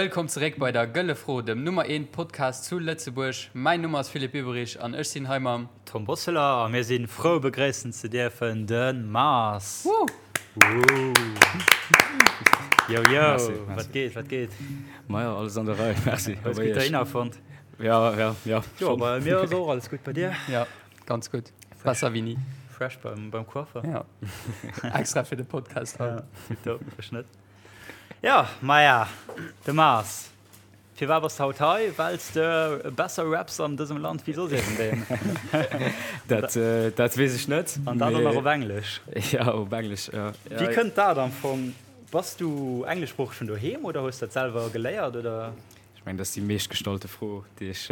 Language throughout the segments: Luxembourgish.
Wëllkomm zeréck bei der Gëlle Fro, dem Nummer eent Podcast zu Lëtzebuerg. Mäin Numm ass Philippe Ueberich an ech sinn hei mam. Tom Bosseler a mir si frou begréissen ze dierfen de Mars. Woo! Yo yo, wat geet, wat geet? Maja, alles an der Rei, merci. Hues gutt dohinner fonnt? Ja, ja, ja. Jo, bei mir ass och alles gutt, bei dir? Ja, ganz gutt. Besser wéi ni. Fresh beim, beim Coiffer. Ja. Extra fir de Podcast haut. Ja, tipptopp, ech net. Ja, maja, de Mars. Firwat bass de haut hei? Well s de besser raps an dësem Land wéi soss iergendeen. Dat, dat weess ech net. An dat och nach op Englesch. Ja, op Englesch, ja. Wéi kënnt dat am Fong? Bass du engleschsproocheg vun doheem oder hues dat selwer geléiert, oder? Ech mengen, dat ass déi meeschtgestallte Fro, déi ech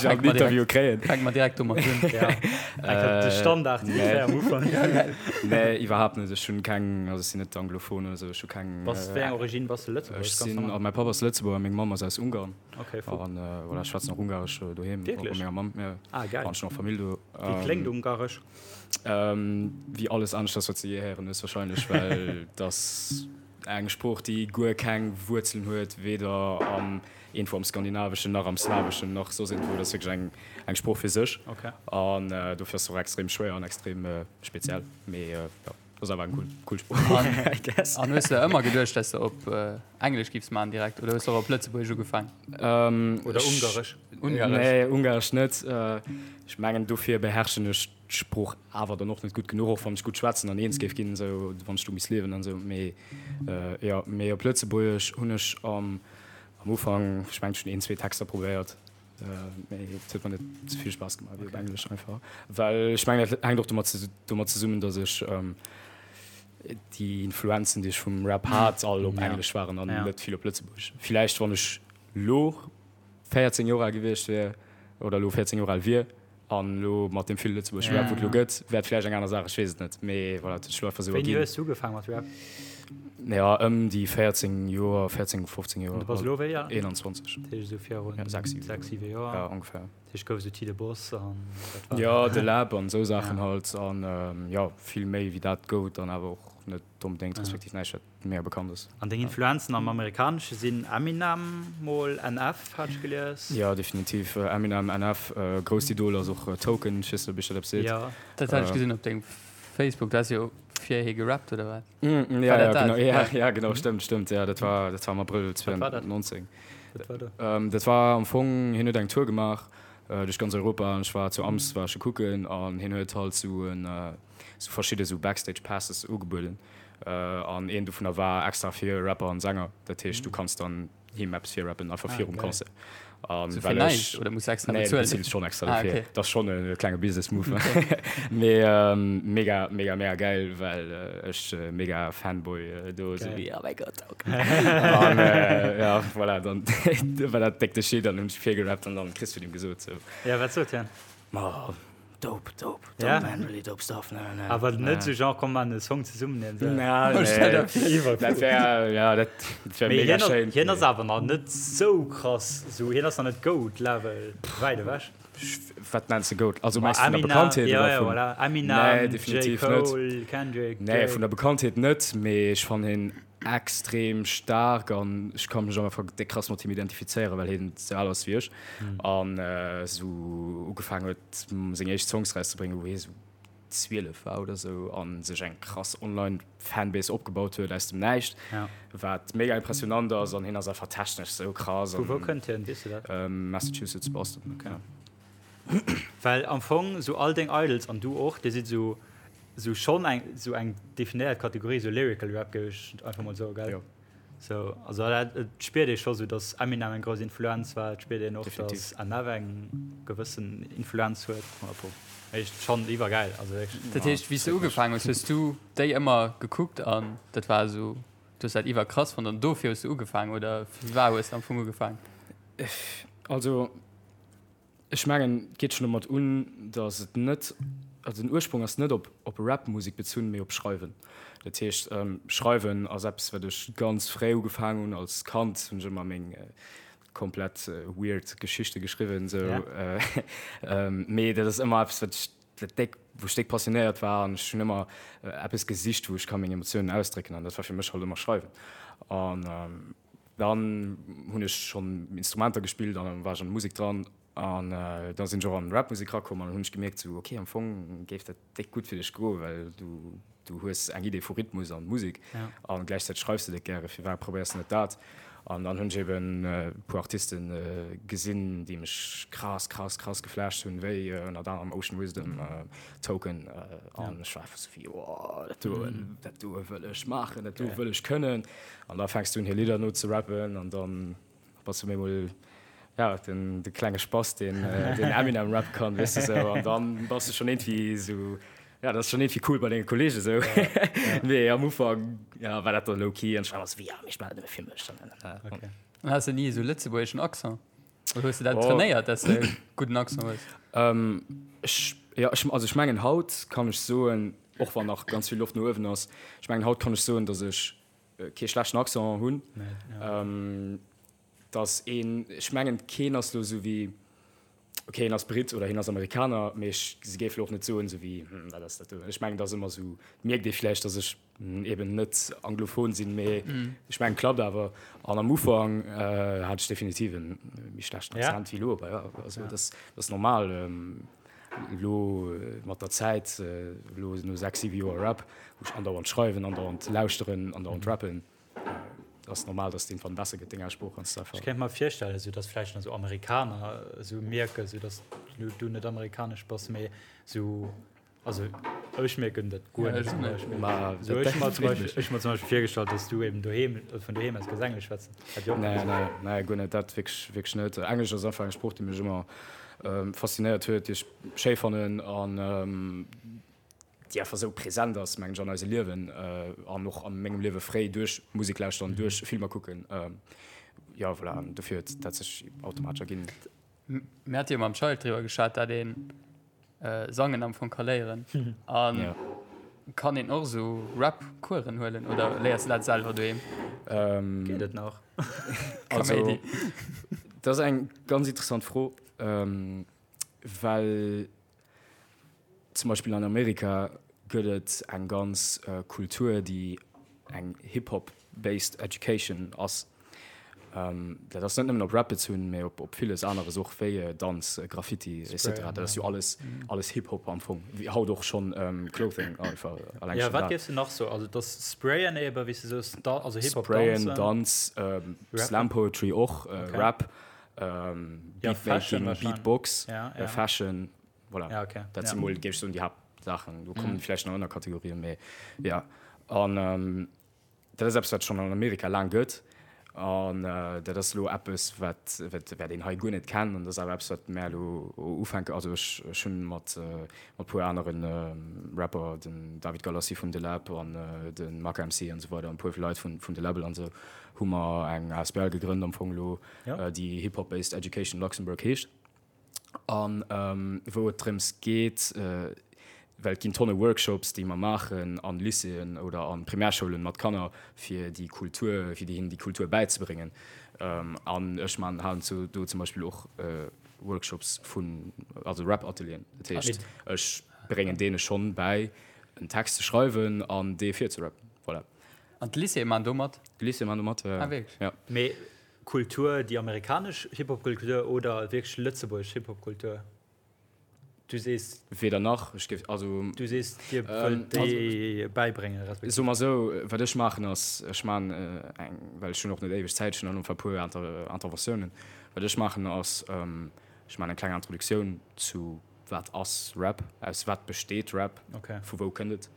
am Interview kréien. Fänke mer direkt domat un. De Standard ungefähr am Ufank. Nee, iwwerhaapt net. Ech hunn keng, also ech sinn net anglophon oder esou. Ech hu keng. Bass wéi eng Origine? Bass de Lëtzebuerger? Ech sinn, also mäi Papp ass Lëtzebuerger, meng Mamm ass aus Ungarn. Okay, fuck. An voilà, ech schwätzen och Ungaresch doheem. Wierklech? Bei menger Mamm, jo. Ah, geil. An ech hunn och Famill do. Wéi kléngt Ungaresch? Wéi alles aneschters, wat s de jee héieren hues warscheinlech, well dass. Eng Sprooch, déi guer keng Wuerzelen huet, weder am iergendwou am Skandinaveschen, nach am Slaweschen, nach soss iergendwou. Dat ass wierklech eng, eng Sprooch fir sech. An dofir ass se och extrem schwéier an extrem speziell. Mee jo, ass awer eng cool, cool Sprooch, I guess. An hues de ëmmer geduecht, dass de op Englesch giffs maachen direkt oder hues de och op Lëtzebuergesch ugefaang? Oder Ungaresch? Ungaresch? Nee, Ungaresch net. Ech mengen, dofir beherrschen ech d'Sprooch awer dann och net gutt genuch, och wann ech gutt schwätzen an eens géif ginn, esou wann ech do misst liewen an esou. Mee jo, mee op Lëtzebuergesch hunn ech am am Ufank, ech mengen ech hunn een, zwee Texter probéiert, mee et huet mer net esou vill Spaass gemaach wéi op Englesch einfach. Well ech mengen dat hänkt och domat domat zesummen, datt ech déi Influenzen, déi ech vum Rap hat, all op Englesch waren an net vill op Lëtzebuergesch. Villäicht wann ech lo 14 Joer al gewiescht wier oder elo 14 Joer al wier an elo mat deem vill lëtzebuergesche Rap, wou et elo gëtt, wär et vläicht eng aner Saach, ech weess et net. Mee voilà, et huet sech elo einfach esou erginn. Wéini hues du ugefaang mat Rap? Ja, ëm déi 14 Joer, 14, 15 Joer. An du bass elo wéi al? 21. Dat heescht esou virun 6, 7 Joer. Ja, ongeféier. Dat heescht gouf esou Tide Boss an dat war. Jo, De Läb an esou Saachen halt. An jo, vill méi wéi dat gouf et dann awer och net onbedéngt, respektiv näischt, wat. Mega bekannt ass. An deng Influenzen am Amerikanesche sinn Eminem, mol NF hat ech gelies. Jo, definitiv Eminem, NF. Grousst Idol ass och Token, ech weess net ob iech dat eppes seet. Jo. Dat hat ech gesinn op dengem Facebook, du has jo fir hie gerappt oder wat? Ja, ja, genau, ja, ja, genau, stëmmt, stëmmt, ja, dat war, dat war am Abrëll 2019. Wat war dat? Dat war am Fong, hien huet eng Tour gemaach duerch ganz Europa an ech war zu Ams, war ech e kucken an hien huet halt sou en, sou verschidde sou Backstage Passes ugebueden. An een dovunner war extra fir Rapper an Sänger. Dat heescht, du kanns dann him eppes virrappen, einfach virum Concert. An well ech. Oder muss extra bezuelen? Nee, du bezills schonn extra dofir. Dat ass schonn e klenge Business Move. Mee mega, mega, mega gäil, well ech mega Fanboy do esou wéi, oh mäi Gott, ok. An ja, voilà, dann war dat déck de Shit an hunn ech virgerappt an dann kriss vun him gesot sou. Ja, wat sot hien? Ma Dope, dope, dope Ja. man, really dope stuff, ne, ne. Awer net sou genre komm maan e Song zesummen een sou. Na, nee. Dat wär, ja, dat wär Mee mega hien ass, schéin. hien ass awer nach net sou krass, sou hien ass nach net Goat Level, wäit ewech. Wat nenns de Goat? Also Ma mengs du vun der Eminem, Bekanntheet ja, oder ja, vun? voilà. Nee, Eminem, J. definitiv net. Cole, Kendrick, Nee, Drake. vun der Bekanntheet net, mee ech fannen hien extrem staark an ech ka mech einfach déck krass mat him identifizéieren, well hien sou al ass wéi ech an sou ugefaangen huet seng éischt Songs rauszebréngen wou hie sou 12 war oder sou an sech eng krass online Fanbase opgebaut huet aus dem Näischt, wat mega impressionant ass an hien ass einfach technesch sou krass. Vu wou kënnt hien, weess du dat? Massachusetts, Boston. Okay. Well am Fong sou all deng Idols an du och, dir sidd sou sou schonn eng sou eng definéiert Kategorie, sou Lyrical Rap géif ech einfach mol soen, gell? Jo. Sou, also dat et spiert ee scho sou, datt Eminem eng grouss Influenz war, et spiert een och, Definitiv. datt NF eng gewëssen Influenz huet. 100 pro. Echt schonn iwwergäil, also wierklech. Dat heescht, wéi s de ugefaangen hues, hues du déi ëmmer gekuckt an dat war esou, du hues dat iwwerkrass fonnt an dofir hues du ugefaangen oder firwat hues de am Fong ugefaangen? Also Ech mengen, et geet schonn domat un, datt et net, also den Ursprong ass net op op Rap-Musek bezunn, mee op Schreiwen. Dat heescht, Schreiwen ass eppes, wat ech ganz fréi ugefaangen hunn. Als Kand hunn ech ëmmer meng komplett weird Geschichte geschriwwen, esou. Mee dat ass ëmmer eppes, wat ech, wat déck, wou ech déck passionéiert war an ech hunn ëmmer eppes gesicht, wou ech ka meng Emotiounen ausdrécken an dat war fir mech halt ëmmer Schreiwen. An. Dann hunn ech schonn Instrumenter gespillt an dann war ech an der Musek dran an da sinn ech och an Rapmusek rakomm an dann hunn ech gemierkt sou okay am Fong géif dat déck gutt fir dech goen, well du du hues eng Idee vu Rhythmus an Musek an gläichzäiteg schreifs de déck gäre, firwat probéiers de net dat? An dann hunn ech eben e puer Artiste gesinn, déi mech krass krass krass geflasht hunn, wéi ënnert anerem Ocean Wisdom, Token an ech war einfach sou wéi oh dat do dat do wëll ech maachen, dat do wëll ech kënnen. An da fänks du un hir Lidder no ze rappen an dann bass du op eemol ja den de klenge Spass deen den Eminem rappe kann, weess de sou. An dann bass du schonn iergendwéi sou, ja dat ass schonn iergendwéi cool bei denge Kolleege sou. Mee am Ufank ja war dat dann low key an ech war ëmmer sou wéi ja mee ech maachen dat nëmme fir mech. Okay. An has de ni esou lëtzebuergeschen Accent? Oder hues de dat trainéiert, dass de e gudden Accent hues? Ech ja ech also ech mengen haut kann ech soen, och wann nach ganz vill Loft no uewen ass, ech mengen haut kann ech soen, datt ech kee schlechten Accent hunn, dass een, ech mengen keen ass lo sou wéi, okay hien ass Britt oder hien ass Amerikaner, mee ech se géif lo och net soen sou wéi, hm wat ass dat do. Ech mengen et ass ëmmer sou, mierkt ee vläicht, dass ech eben net anglophon sinn, mee ech mengen klappt awer. An am Ufank hat ech definitiv e méi schlechten Accent wéi lo, awer jo, also dat ass normal. Elo mat der Zäit, elo no 6, 7 Joer Rap, wou ech andauernd schreiwen, andauernd lauschteren, andauernd rappen, ass normal, dass et iergendwann besser gëtt, deng Aussprooch ganz einfach. Ech kéint mer virstellen, esou dass vläicht nach esou Amerikaner esou mierken, esou dass du net amerikanesch bass, mee esou, also ech mierken dat guer net zum Beispill. Ma Esou ech hu mer zum Beispill, ech hu mer zum Beispill virgestallt, dass du eben doheem, vun doheem aus kanns Englesch schwätzen. Hätt jo och Nee, nee, nee, guer net, dat wierklech, wierklech net. Englesch ass einfach eng Sprooch, déi mech ëmmer faszinéiert huet, déi ech schéi fannen an déi einfach esou present ass, mengen ech, an eise Liewen an och a mengem Liewe fréi duerch Musek lauschteren, duerch Filmer kucken. Jo, voilà, an dofir huet dat sech automatesch erginn. Mir hate jo mam Child driwwer geschwat, dat ee Sangen am Fong ka léieren. An kann een och esou Rap-Coursen huelen oder léiers de dat selwer doheem? Geet et nach? Also, dat ass eng ganz interessant Fro, well zum Beispill an Amerika gëtt et eng ganz Kultur, déi eng Hip-Hop-based education ass. Dat ass net nëmmen op Rap bezunn, mee op op villes aneres och, wéi Danz, Graffiti et cetera. Dat ass jo alles alles Hip-Hop am Fong, wéi haut och schonn Clothing einfach alleng schonn dat. Wat géifs de nach soen? Also et ass Sprayen ebe wéi s de soos, also Hip-Hop Sprayen, Danz, Slam Poetry och, Rap, Beatmaking, Beatbox, Fashion, voilà. Dat si mol, géif ech soen, déi Haaptsaachen. Do kommen vläicht nach Ënnerkategorien, mee jo. An Dat ass eppes, wat et schonn an Amerika laang gëtt. An dat ass elo eppes, wat, wat, wat een hei guer net kennt. An dat ass awer eppes, wat mär elo ufänken. Also ech, ech hunn mat, mat e puer anere Rapper, den David Galassi vun De Läb an de Maka MC an esou weider an e puer Leit vun, vun De Läbbel an esou, hu mer eng asbl gegrënnt am Fong elo, déi Hip Hop Based Education Luxembourg heescht. An wou et drëms geet, well et ginn tonne Workshops, déi mer maachen an Lycéeën oder an Primärschoulen mat Kanner, fir déi Kultur, fir hinnen déi Kultur bäizebréngen. An ech man, halen zu do zum Beispill och Workshops vun, also Rap-Atelieren. Dat heescht, ech bréngen deene schonn bäi, en Text ze schreiwen an dee virzerappen. Voilà. An d'Lycéeë man do mat? D'Lycéeë man do mat, jo. Ah, wierklech? Ja. Mee Kultur, déi amerikanesch Hip-Hop-Kultur oder wierklech lëtzebuergesch Hip-Hop-Kultur? Du sees. Weder nach. Ech géif, also. Du sees, Dir wëllt déi bäibréngen, respektiv. Soe mer esou, wat ech maachen ass, ech maachen eng, well ech hunn och net éiweg Zäit, ech hunn dann einfach e puer Interventiounen. Wat ech maachen ass, ech maachen eng kleng Introduktioun zu wat ass Rap, aus wat besteet Rap, vu wou kënnt et.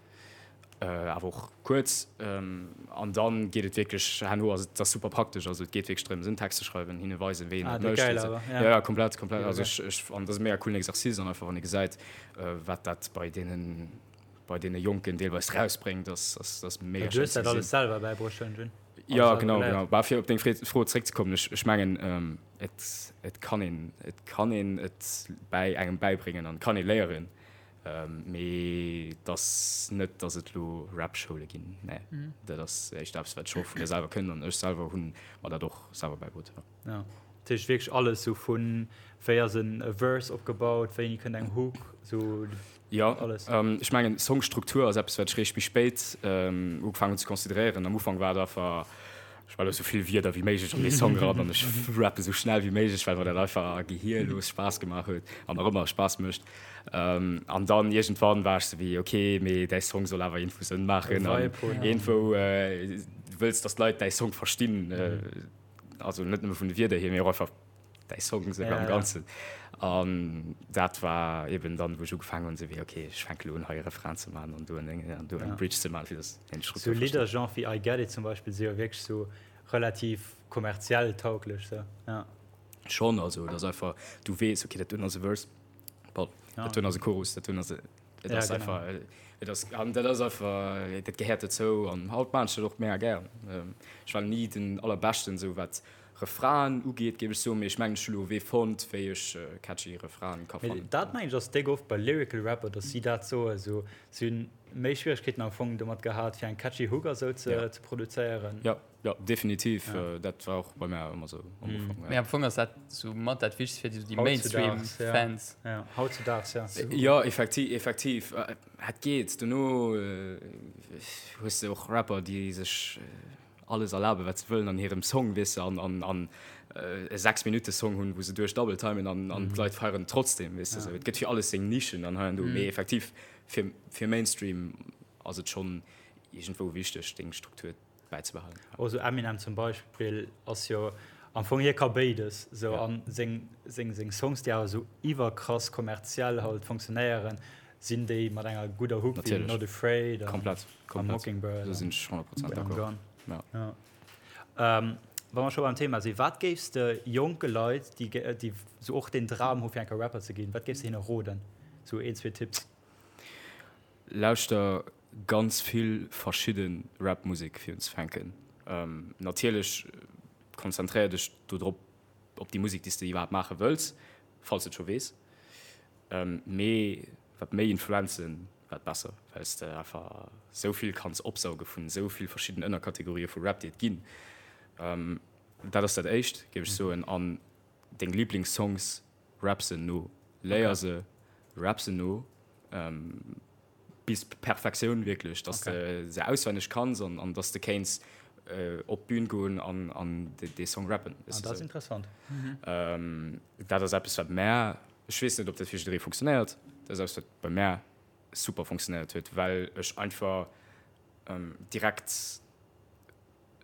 Awer och kuerz. An dann geet et wierklech herno, also et ass super praktesch, also et geet wierklech drëms en Text ze schreiwen, hinne weisen, wéi een dat mécht. Geil awer, ja. Ja, komplett, komplett. Also ech, ech, an dat ass e mega coolen Exercice an einfach wann ee gesäit, wat dat bei deenen, bei deene Jonken deelweis rausbréngt, ass, ass, ass mega schéin ze gesinn. Du hues dat alles selwer bäibruecht, Jun? Ja, genau, genau. Bah, fir op deng Fro zréckzekommen, ech, ech mengen, et, et kann een, et kann een et bäi engem bäibréngen an kann ee léieren. Mee et ass net, datt et elo Rap-Schoule ginn. Nee, dat ass éischter eppes, wat ech och vun mir selwer kënn an ech selwer hunn mer dat och selwer bäibruet. Jo. Ja, dat heescht wierklech alles sou vun wéi ass en Verse opgebaut, wéini kënnt eng Hook, sou Jo, alles. Ech mengen Songstruktur ass eppes, wat ech réischt méi spéit ugefaangen hunn ze consideréieren. Am Ufank war et einfach. Ech well esou vill Wierder wéi méiglech an dee Song eran an ech rappe sou schnell wéi méiglech, well mer dat einfach gehierlos Spaass gemaach huet an nach ëmmer Spaass mécht. An dann iergendwann war ech sou wéi, ok, mee däi Song soll awer iergendwou Sënn maachen an iergendwou du wëlls, datt d'Leit däi Song verstinn, also net nëmme vun de Wierder hier, mee och einfach däi Song esou am Ganzen. An dat war eben dann, wou ech ugefaangen hunn, esou wéi, ok, ech fänke lo un, hei e Refrain ze maachen an do en Déngen an do eng Bridge ze maachen, fir datt een d'Struktur versteet. Sou Lidder, genre wéi I Get It zum Beispill, si jo wierklech sou relativ kommerziell tauglech, sou, ja. Schonn, also et ass einfach, du weess, ok, dat doen ass e Verse, bon, dat doen ass e Chorus, dat doen ass e, et ass einfach, et ass, an dat ass einfach, dat gehéiert dozou an haut maachen ech dat och mega gär. Ech war ni den Allerbeschten, sou wat Refrainen ugeet, géif ech soen, mee ech mengen ech hu lo e Wee fonnt, wéi ech catchy Refrainen ka fannen. Dat mengen ech ass déck oft bei Lyrical Rapper, dass si dat soen, sou si hunn méi Schwieregkeeten am Fong domat gehat fir eng catchy Hook a sou ze produzéieren. Jo, jo, definitiv, dat war och bei mär ëmmer sou am Ufank. Mee am Fong ass dat sou mat dat Wichtegst fir déi Mainstream Fans. Jo, hautzudaags, jo. Jo, effektiv, effektiv, et geet. Dono hues de och Rapper, déi sech alles erlaben wat se wëllen an hirem Song, weess de, an an an e 6 Minutte Song hunn, wou se duerch double timen an an d'Leit feieren trotzdem, weess de, sou. Et gëtt fir alles seng Nischen an hei an do, mee effektiv fir fir Mainstream ass et schonn iergendwou wichteg deng Struktur bäizebehalen. Och sou Eminem zum Beispill ass jo am Fong, hie ka béides sou an seng seng seng Songs déi awer sou iwwerkrass kommerziell halt funktionéieren, sinn déi mat enger gudder Hook wéi Not Afraid an Komplett. Komplett. Mockingbird. Do sinn ech 100% d'accord. Ja. Ja. Ähm, wa mer scho beim Thema sinn, wat géifs de jonke Leit, déi, déi sou och den Dram hu fir eng Kéier Rapper ze ginn, wat géifs de hinne roden? Sou een, zwee Tipps. Lauschter ganz vill verschidde Rap-Musek fir unzefänken. Ähm, natierlech konzentréier dech do drop op déi Musek, déi s de iwwerhaapt maache wëlls, falls de et scho weess. Mee wat méi Influenzen, wat besser, well s de einfach sou vill kanns opsauge vun sou vill verschidden Ënnerkategorië vu Rap, déi et ginn. Dat ass dat éischt, géif ech soen. An deng Liblingssongs, rap se no. Léier se, rap se no. Bis Perfektioun wierklech, dass de se auswenneg kanns an an dass de kéints op d'Bün goen an an dee Song rappen. Ah, dat ass interessant. Dat ass eppes wat mär, ech weess net ob dat fir jidderee funktionéiert, dat ass eppes wat bei mär super funktionéiert huet, well ech einfach direkt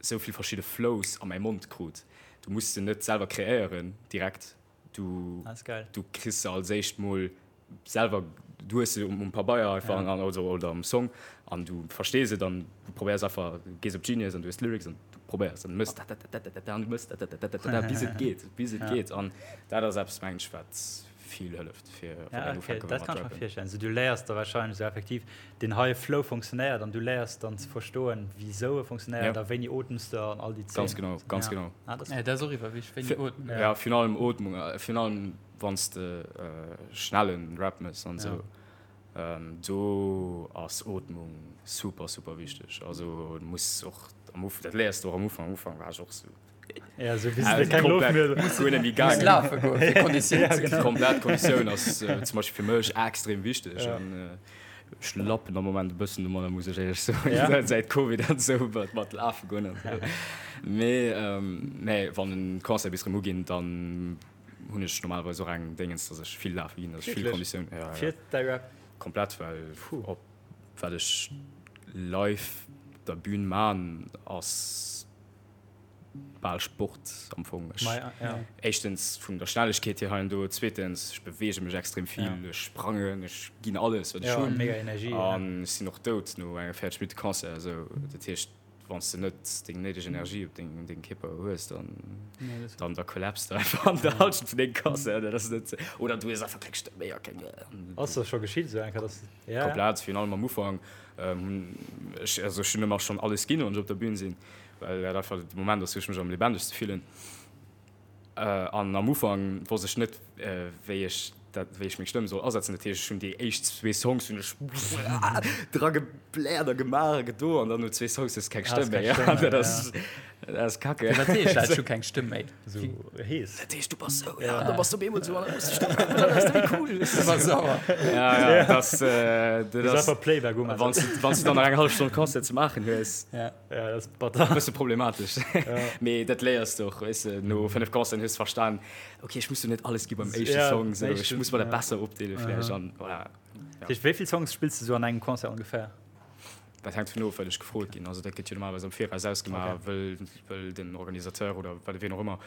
esou vill verschidde Flows a mäi Mond krut. Du muss se net selwer kreéieren direkt, du du kriss se als éischt mol selwer, du hues se um Pabeier einfach an, also, oder am Song an du verstees et an du probéiers einfach, du gees op Genius an du hues d'Lyrics an du probéiers an du mëss dat-dat-dat-dat-dat an du mëss dat-dat-dat-dat-dat bis et geet, bis et geet an dat ass eppes mengen ech wat vill hëlleft fir wann een ufänke wëll mat rappen. Dat kann ech mer virstellen. Also du léiers da wahrscheinlech esou effektiv deen heie Flow funktionéiert an du léiers dann ze verstoen wisou e funktionéiert a wéini ootms de an all déi Zeen. Ganz genau, ganz genau. Dat ass och iwwer wichteg, wéini ootmen. Ja, virun allem Ootmung, virun allem Wann s de schnellen Rap mëss an esou, do ass Ootmung super super wichteg. Also du muss och am Ufank, dat léiers de och am Ufank, am Ufank war ech och sou Ja, sou bis de keng Loft méi hues. Guer net méi gaangen. Lafe goen fir Konditioun ze kréien. Komplett, Konditioun ass zum Beispill fir mech extrem wichteg an ech lappen am Moment e bëssen domadder, muss ech éierlech soen, säit Covid an esou mat lafe goen an esou. Mee nee, wann den Concert bis erëm uginn, dann hunn ech normalerweis och eng Déngens, dass ech vill lafe ginn, dass ech vill Konditioun. Ja, ja. Fir däi Rap? Komplett, well op wat ech live op der Bühn man, ass bal Sport am Fong. Ech, Ma ja. éischtens vun der Schnellegkeet hier hei an do, zweetens ech beweege mech extrem vill, ja. ech sprangen, ech ginn alles wat ech ja, hunn. Mega Energie. An ech sinn och dout no enger 40 Minutte Concert, esou dat heescht, Wann s de net deng néideg Energie op dengem dengem Kierper hues, dann dann da kollapst de einfach an der Halschent vun dengem Concert. Dat ass net oder du hues einfach keng Stëmm méi a keng. Ass dat scho geschitt esou eng Kéier, dass ja? Komplett, virun allem am Ufank hunn ech also ech hunn ëmmer schonn alles ginn, wann ech op der Bün sinn, well dat einfach de Moment ass, wou ech mech am lebendigste fillen. An am Ufank wosst ech net, wéi ech dat, wéi ech meng Stëmm soll asetzen. Dat heescht, ech hunn déi éischt zwee Songs hunn ech dra gebläert a gemaach a gedo an dann no zwee Songs hues de keng Stëmm méi. An dat ass. Dat ass kacke. Wat heescht dat, ech hu keng Stëmm méi? Sou hees. Dat heescht, du bass sou, ja, da bass du op eemol sou an da muss de Stëmm kommen, dann ass dat méi cool. Du bass sauer. Ja, ja, das, äh, Du dat ass, einfach Playback um. wann du, wann du dann nach eng hallef Stonn Concert ze maachen hues, Ja. Ja, dat ass batter. bësse problematesch. Mee dat léiers du och, weess de, no 5 Concerten hues du verstan, okay, ech muss jo net alles gi beim éischte Ja, Song, sou, ech éischten, muss mer dat ja. besser opdeele vläicht an voilà. Dat heescht, wéi vill Songs spills du sou an engem Concert ongeféier? Dat hänkt dovun of, wat ech gefrot ginn. Also dat gëtt jo normalerweis am Viraus ausgemaach, Okay. wëll, wëll den Organisateur oder wat wien och ëmmer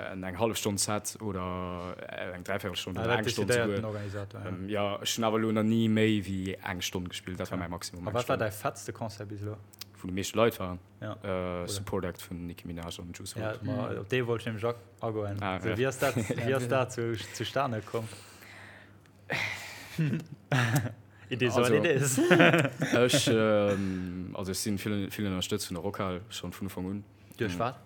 en eng hallef Stonn Set oder eng Dräivéierelstonn Ah, oder dat eng Stonn decidéiert souguer. den Organisator, ja. Jo, ech hunn awer elo nach ni méi wéi eng Stonn gespillt. Dat war mäi Maximum, A eng wat war Stonn. däi fettste Concert bis elo? Wou déi meeschte Leit waren? Ja. Oder? Support Act vun Nicki Minaj an Juice Ja, WRLD. ma op dee wollt ech nämlech agoen. Ah, Sou, ja. wéi ass dat, wéi ass dat zu, zustane komm? It is what it is. Ech, also ech sinn vill, vill ënnerstëtzt vun der Rockhal, schonn vun Ufank un. Duerch wat?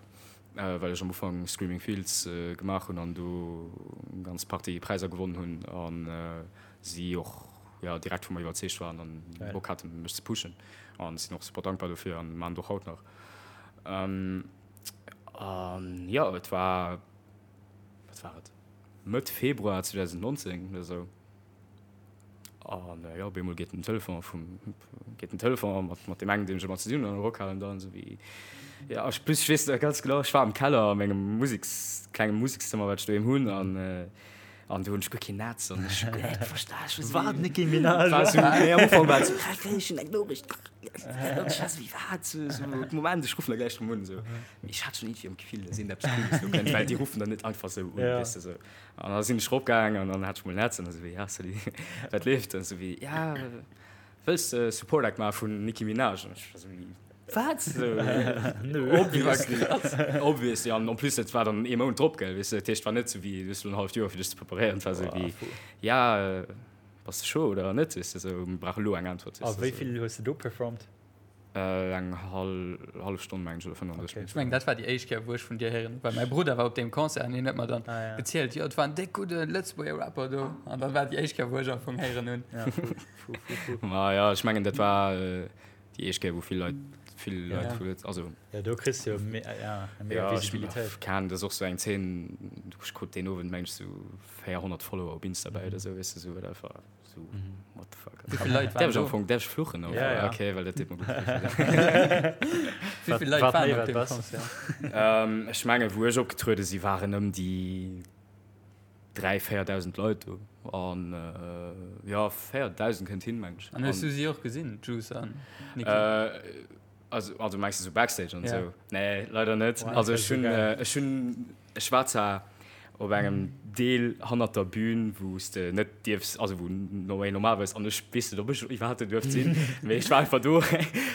Well ech am Ufank Screaming Fields gemaach hunn an do eng ganz Partie Präisser gewonnen hunn an si och, jo, direkt vu mer iwwerzeegt waren an Bock haten mech ze pushen. An sinn och super dankbar dofir an maachen et och haut nach. An jo, et war, wat war et? Mëtt Februar 2019 oder sou. An jo, op eemol geet den Telefon vum, geet den Telefon mat, mat deem engen, deem ech ëmmer ze dinn hunn an der Rockhal an dann esou wéi, jo, ech, plus ech weess nach ganz genau, ech war am Keller a mengem Museks, klenge Musekszëmmer, wat ech doheem hunn an, an do hunn ech guer keen Netz an ech hu guer net verstan, ech war esou Wat, wéi, Nicki Minaj? war esou, nee, am Ufank war et esou, wat, ech hunn eng Noriicht, an ech war esou wéi, wat, esou, esou, Moment, ech ruffen da gläich erëm un, esou. Mee ech hat schonn iergendwéi am Gefill, dass iergendeppes Cooles do kënnt, well déi ruffen dann net einfach esou un, Ja. weess de, esou. An da sinn ech eropgaang an dann hat ech mol Netz an esou wéi, ja salut, wat leeft? An esou wéi, ja, wëlls de Support Act maache vun Nicki Minaj? An ech war esou wéi, wat? Esou, obviously, obviously. An en plus, dat war dann ee Mount drop, gell, weess de, dat heescht, et war net esou wéi, du hues elo en halleft Joer fir dech ze preparéieren, et war esou wéi, ja, bass de chaud oder net, weess de, esou, mir brauche elo eng Äntwert, A weess de, wéi esou. vill hues de do performt? Eng hallef Stonn mengen ech oder 35 Okay. Ech mengen dat war déi éischt Kéier wou ech vun dir héieren hunn, well mäi Brudder war op deem Concert an hien huet mer dann Ah, ja. gezielt, jo et war en déck gudde Lëtzebuerger Rapper do an dat war déi éischt Kéier wou ech am Fong héieren hunn. Ja, fu, fu, fu, fu. Ma ja, ech mengen dat war déi éischt Kéier wou vill Leit, vill Leit Ja. vu Lëtz, also Ja, do kriss du jo me, ja, eng mega ja, ech Visibilitéit. kann, dat ass och sou eng Zeen, ech krut deen Owend mengen ech sou 400 Follower op Insta bäi oder sou, weess de, sou wat einfach. So, what the fuck. Wéi vill Leit waren Därf ech am do? Fong, därf ech fluchen? Oder? Ja, ja. Okay, well dat deet mer gutt. Wéi vill Leit Wat waren méi, op wat deem besser. Concert? ähm, ech menge wou ech opgetruede si waren ëm déi 3 4.000 Leit do. An äh, ja 4.000 kënnt hin meng ech. An hues du si och gesinn, Juice an Nicki? Äh, also, also mengst du so Backstage an Ja. sou? Nee, leider net. Boah, also dat ech wär hunn, so geil. äh, ech hunn, ech war zwar op engem Deel hannert der Bühn, wou s de net dierfs, also wou no normalerweis, an ech weess net, ob ech iwwerhaapt do duerft sinn, mee ech war einfach do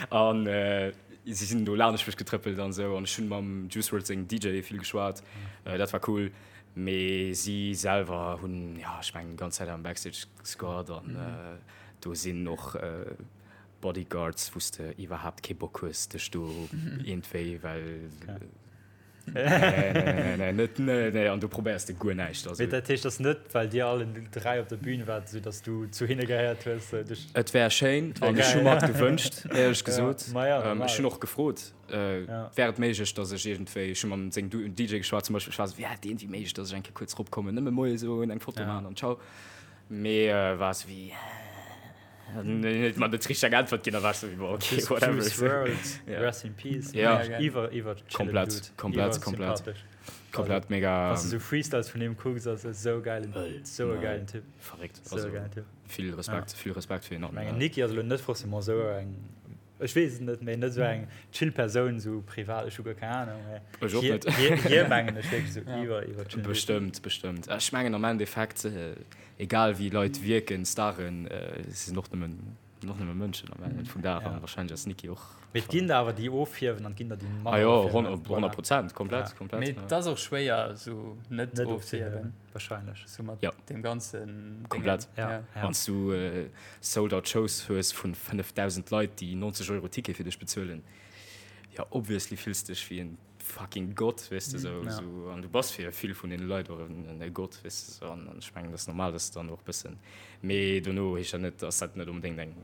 an äh, si sinn do laanscht mech getrëppelt an sou an ech hunn mam Juice WRLD sengem DJ vill geschwat, äh, dat war cool, mee si selwer hunn, ja, ech mengen, déi ganz Zäit am Backstage gesquat an äh, do sinn och äh, Bodyguards, wou s de iwwerhaapt kee Bock hues, dech do iergendwéi, well. Nee, nee, nee, net, nee, nee, an du probéiers de guer näischt. Also. Mee dat heescht, ass net, well dir allen 3 op der Bühn waart, esou datt du zu hinne gehéiert hues, sou dech. Et wär schéin an ech hu mer et gewënscht, éierlech gesot. Ja, ma ja, normal. Ech hunn och gefrot, Ja. wär et méiglech, datt ech iergendwéi, ech hu mam sengem DJ geschwat zum Beispill, ech war esou, wär et iergendwéi méiglech, datt ech eng Kéier kuerz eropkommen, nëmme Moie soen, eng Foto Ja. maachen an ciao. Mee war esou wéi. Huet mer net richteg eng Äntwert ginn, da war ech sou wéi, boah, okay, Juice whatever. Juice WRLD, Ja. Rest in Peace. Ja. Mega geil. Iwwer, iwwer chillen Komplett, Dude. komplett, Iwwer komplett. sympathesch. Komplett mega. Wann du sou Freestyles vun him kucks, ass e sou geilen, Wëll. sou e Ja. geilen Typ. Verréckt. Sou Also, e geilen Typ. vill Respekt, vill Respekt fir hien. Ech mengen, Nicki ass elo net forcément sou eng, ech weess et net, mee net sou eng chill Persoun, sou privat, ech hu guer keng Ahnung, mee Ech och hie, net. hie, hie mengen ech wierklech sou Ja. iwwer, iwwer chillen Dude. Bestëmmt, bestëmmt. Ech mengen am Endeffekt, Egal wéi Leit wierken, Staren, si sinn och nëmmen, och nëmme Mënschen am Enn vum Dag an wahrscheinlech ass d'Nicki och. Mee et ginn der awer déi ofhiewen an et ginn der déi Ah jo, manner ofhiewen. 100 Prozent, komplett, Ja. komplett. Mee et ass och schwéier esou net Net ofzehiewen. ofzehiewen, wahrscheinlech. Sou mat Ja. deem ganzen Déngen. Komplett. Ja, Ja. ja. Wann s du Sold-out Shows hues vun 5.000 Leit, déi 90 Euro Ticket fir dech bezuelen, jo obviously fills dech wéi en fucking Gott, weess de, sou, Ja. sou, an du bass fir vill vun deene Leit och en e Gott, weess de, sou, an ech mengen, dat ass normal, dass de dann och e bëssen, mee dono heescht dat net, dass dat net onbedéngt eng.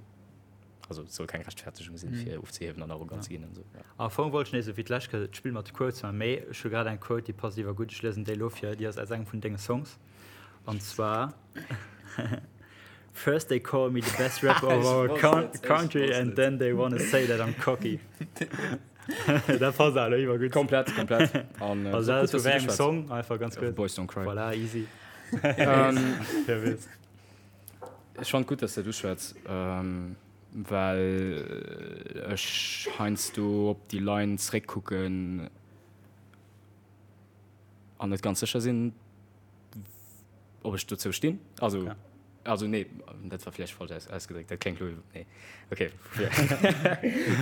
Also et soll keng Rechtfertegung sinn, fir ofzehiewen an arrogant ze ginn an esou. Am Fong wollt ech nees esou wéi d'lescht Kéier d'Spill mat de Quotes maachen, mee ech hu grad eng Quote, déi passt iwwergutt. Ech liesen déi elo vir, déi ass aus engem vun denge Songs, an zwar, First they call me the best rapper of our country and then they wanna say that I'm cocky. Dat passt awer iwwergutt. Komplett, komplett. An also dat ass vu wéi engem Song? Einfach ganz kuerz. Boys Don't Cry. Voilà, easy. Ech fannen et gutt, dass de dat uschwätz, well ech heiansdo op déi Line zeréckkucken an net ganz sécher sinn, ob ech dozou stinn. Also, ja. also nee, dat war vläicht falsch aus, ausgedréckt, dat kléngt lo, nee. Okay,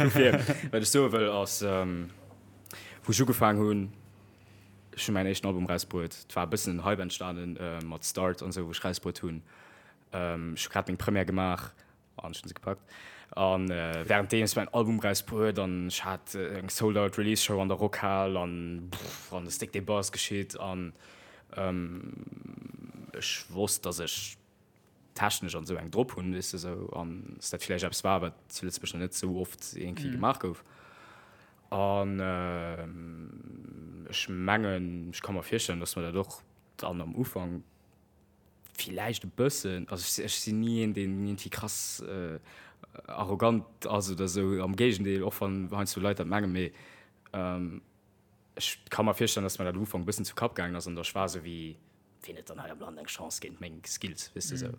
dofir. Wat ech soe wëll ass, wou ech ugefaang hunn, Ech hunn mäin éischten Album rausbruet. Et war e bëssen en Hype entstanen mat Start an esou, wou ech rausbruet hunn. Ech hu grad meng Première gemaach an ech hunn se gepackt. A wärenddeems mäin Album rausbruet an ech hat eng Sold-Out Release Show an der Rockhal an an ass déck dee Buzz geschitt an ech wosst, datt ech technesch an esou eng drop hunn, weess de esou, an dass dat villäicht eppes war, wat zu Lëtzebuerg nach net esou oft iergendwéi gemaach gouf. An ech mengen, ech ka mer virstellen, dass mer dat och dann am Ufank villäicht e bëssen, also ech sinn ni een, deen iergendwéi krass arrogant ass oder esou, am Géigendeel, och wann heiansdo Leit dat mengen, mee ech ka mer virstellen, dass mer dat am Ufank e bëssen zu Kapp gaangen ass an da ech war esou wéi, Wien huet dann hei am Land eng Chance géint meng Skills, weess de sou.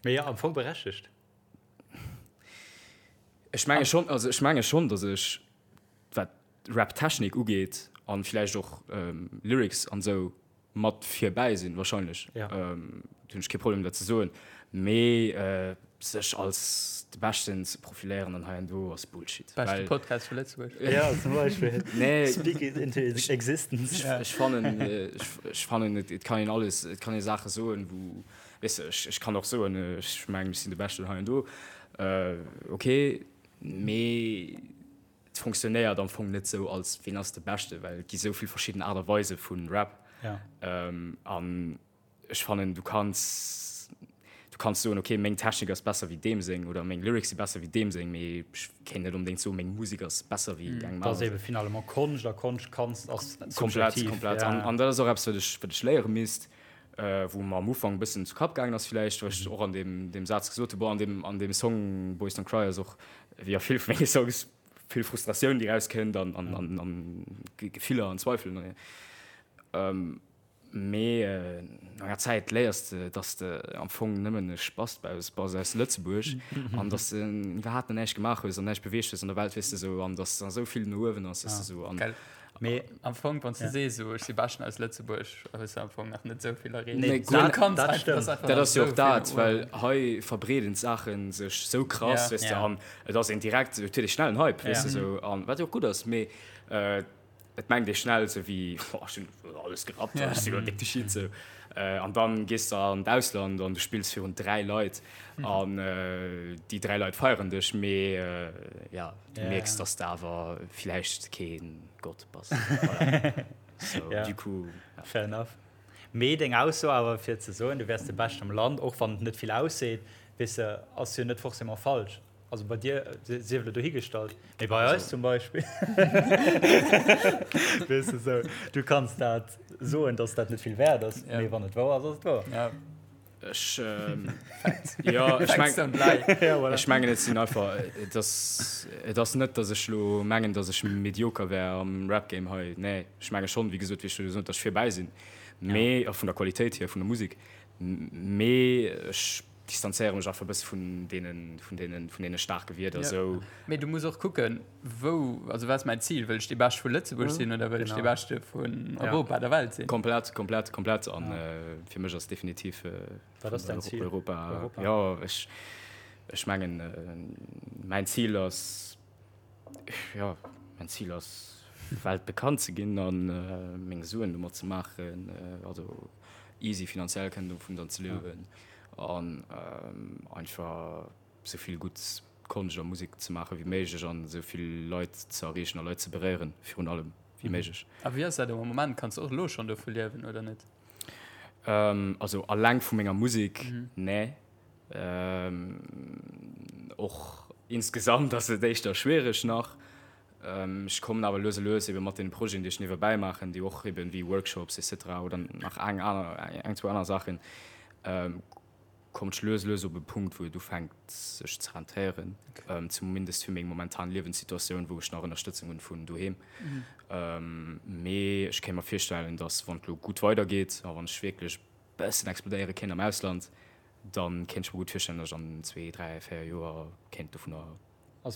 Mee jo, am Fong berechtegt. Ech menge schonn, also ech menge schonn, datt ech, wat Rap-Technik ugeet an villäicht och Lyrics an esou, mat virbäi sinn, wahrscheinlech. Ja. Do hunn ech kee Problem dat ze soen. Mee sech als de Beschten ze profiléieren an hei an do ass Bullshit. Beschte Podcast vu Lëtzebuerg. Ja, zum Beispill. Nee. Speak it into existence. Ech fannen, ech fannen, et kann een alles, et kann ee Saache soen, wou, weess de, ech kann och soen, ech mengen, ech sinn de Beschten hei an do, ok, mee et fonctionnéiert am Fong net sou als ween ass de Beschte, well et gi sou vill verschidden Aart a Weise vu Rap. An Ech fannen du kanns du kanns soen ok meng Technik ass besser wéi deem seng oder meng Lyrics si besser wéi deem seng, mee ech kéint net onbedéngt soen meng Musek ass besser wéi engem Dat ass ebe finalement Konscht a Konscht kanns ass Komplett, subjektiv. komplett. An an dat ass och eppes wat ech wat ech léiere misst, wou mer am Ufank e bëssen zu Kapp gaangen ass villäicht, wou ech och an deem deem Saz gesot hu, bon an deem an deem Song Boys Don't Cry ass och wéi a vill vu menge Songs vill Frustratioun déi rauskënnt an an an an Gefiller an Zweifelen. Mee no enger Zäit léiers de, dass de am Fong nëmmen e Spast bass aus Lëtzebuerg an dass de iwwerhaapt nach näischt gemaach hues an näischt beweegt hues an der Welt, weess de sou, an dass nach esou vill no uewen ass, weess de sou. An Gell. Mee am Fong, wann s de sees esou, ech si beschten aus Lëtzebuerg, hues de am Fong nach net esou vill erreecht. Nee, Du guer net. kanns Dat einfach, stëmmt. dat ass einfach Dat nach ass jo esou och vill dat, no well uewen. hei verbreeden d'Saache sech sou krass, Ja. weess de, Ja. an et ass een direkt, et huet ee schnell en Hype, weess Ja. de sou, an wat jo och gutt ass, mee Et mengt ee schnell esou wéi, oh, ech hunn alles gerappt, ech sinn elo déck de Shit esou. An dann gees de an d'Ausland an du spills virun 3 Leit an déi 3 Leit feieren dech, mee ja, du mierks, dass de awer villäicht kee Gott bass. Voilà. So, du coup, ja. Fair enough. Mee deng Ausso awer fir ze soen, du wäers de Beschten am Land, och wann et net vill ausseet, weess de, ass jo net forcément falsch. Also bei dir sief elo dohigestallt, mee bei eis zum Beispill, weess de sou, du kanns dat soen, dass dat net vill wäert ass, mee wann et wouer ass, ass et wouer. Ja. Ech, jo, ech Facts don't lie. Ja, voilà. Ech mengen, et sinn einfach, et ass, et ass net, dass ech elo mengen, dass ech medioker wär am Rap-Game hei. Nee, ech menge schonn, wéi gesot, wéi ech scho gesot hunn, dass ech virbäi sinn, mee, a vun der Qualitéit hier vun der Musek, mee ech distanzéiere mech einfach e bësse vun deenen, vun deenen, vun deene staarke Wierder Ja. esou. Mee du muss och kucken, wou, also wat ass mäin Zil? Wëll ech dee Beschte vu Lëtzebuerg sinn oder wëll ech dee Genau. Beschte vun Ja. Europa, der Welt sinn? Komplett, komplett, komplett. An fir mech ass definitiv Wat ass däin Zil? Europa. Europa. Jo, ech, ech mengen, mäin Zil ass, jo, mäin Zil ass, weltbekannt ze ginn a meng Suen domat ze maachen, also easy finanziell kënnen dovun dann ze liewen. An einfach sou vill gutt Konscht a Musek ze maache wéi méiglech an esou vill Leit ze erreechen a Leit ze beréieren virun allem wéi méiglech. A wéi ass dat am Moment? Kanns de och elo schonn dovu liewen oder net? Also alleng vu menger Musek, nee. Och insgesamt ass et éischter schwiereg nach. Ech kommen awer lues a lues ebe mat deene Projeten, déi ech niewebäi maachen, déi och eben wéi Workshops et cetera oder nach eng aner, eng, zwou aner Saachen, kommen ech lues a lues op e Punkt, wou et ufänkt sech ze rentéieren, zumindest fir meng momentan Liewenssituatioun, wou ech nach Ënnerstëtzung hunn vun doheem. Mee ech kéint mer virstellen, datt wann et elo gutt weidergeet a wann ech wierklech e bëssen explodéiere kéint am Ausland, da kéint ech mer gutt virstellen, datt ech an zwee, dräi, véier Joer kéint dovunner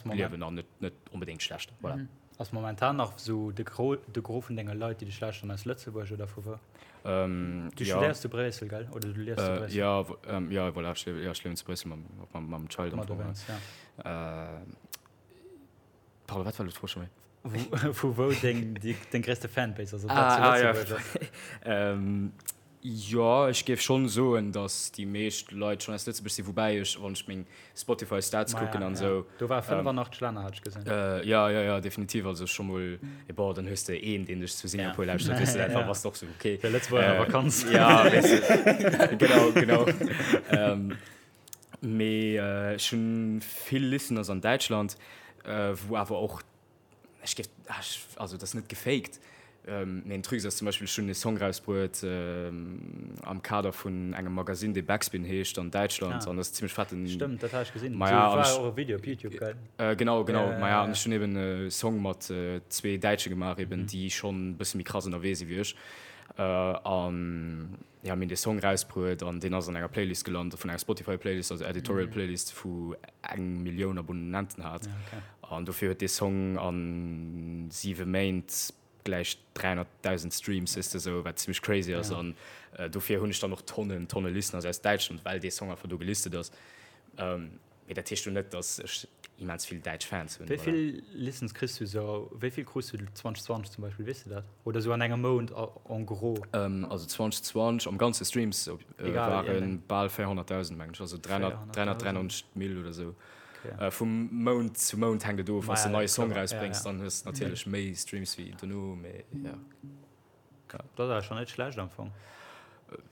liewen an net, net onbedéngt schlecht. Voilà. Mhm. Ass momentan nach sou de Gros, de Gros vun denge Leit, déi dech lauschteren, aus Lëtzebuerg oder vu wou? Ähm, du ja. studéiers zu Bréissel, gell? Oder du liefs zu äh, Bréissel? Ja, ähm, ja, voilà, ech, ja, ech liewen zu Bréissel mam, mam, mam Child am Fong. Ja. Äh, pardon, wat war elo d'Fro scho méi? Vu wou deng, deng gréisste Fanbase ass? Ah, ah, ja. ähm, Jo, ech géif schonn soen, datt déi meescht Leit schonn aus Lëtzebuerg sinn, woubäi ech, wann ech meng Spotify Stats kucken an esou. Do war 85 Länner, hat ech gesinn. Jo, jo, jo, definitiv. Also scho mol, bon, dann hues de een, deen dech zu Singapur lauschtert, weess de, da bass de och sou, okay. Der Lëtzebuerger a Vakanz. Jo, weess de, genau, genau. Mee ech hunn vill Listeners an Däitschland, wou awer och Ech géif, also et ass net gefaked, mee en Truc ass zum Beispill, ech hunn e Song rausbruet am Kader vun engem Magasinn, dee Backspin heescht an Däitschland an dat ass zimmlech fetten. Stëmmt, dat hat ech gesinn. Maja, an ech. War och e Video op Youtube, gell? Genau, genau, maja, an ech hunn eben e Song mat zwee Däitsche gemaach eben, déi schonn e bësse méi krass ënnerwee si wéi ech an. Jo, mir hunn dee Song rausbruet an deen ass an enger Playlist gelant, vun enger Spotify-Playlist, also Editorial Playlist, wou eng Millioun Abonnenten hat. An dofir huet dee Song a siwe Méint gläich 300.000 Streams, weess de, sou, wat zimmlech crazy ass. An dofir hunn ech dann och Tonnen, Tonne Listeners aus Däitschland, well dee Song einfach do gelistet ass. Mee dat heescht jo net, datt ech immens vill däitsch Fans hunn. Wéi vill Listens kriss du sou, wéi vill krus du 2020 zum Beispill, weess du dat? Oder sou an engem Mount en gros? Also 2020 am ganze Streams ware bal 400.000 mengen ech, also 393 Mille oder sou. Vum Mount zu Mount hänkt et of, wann s de en neie Song erausbréngs, dann hues de natierlech méi Streams wéi dono, mee jo. Dat ass awer schon net schlecht am Fong.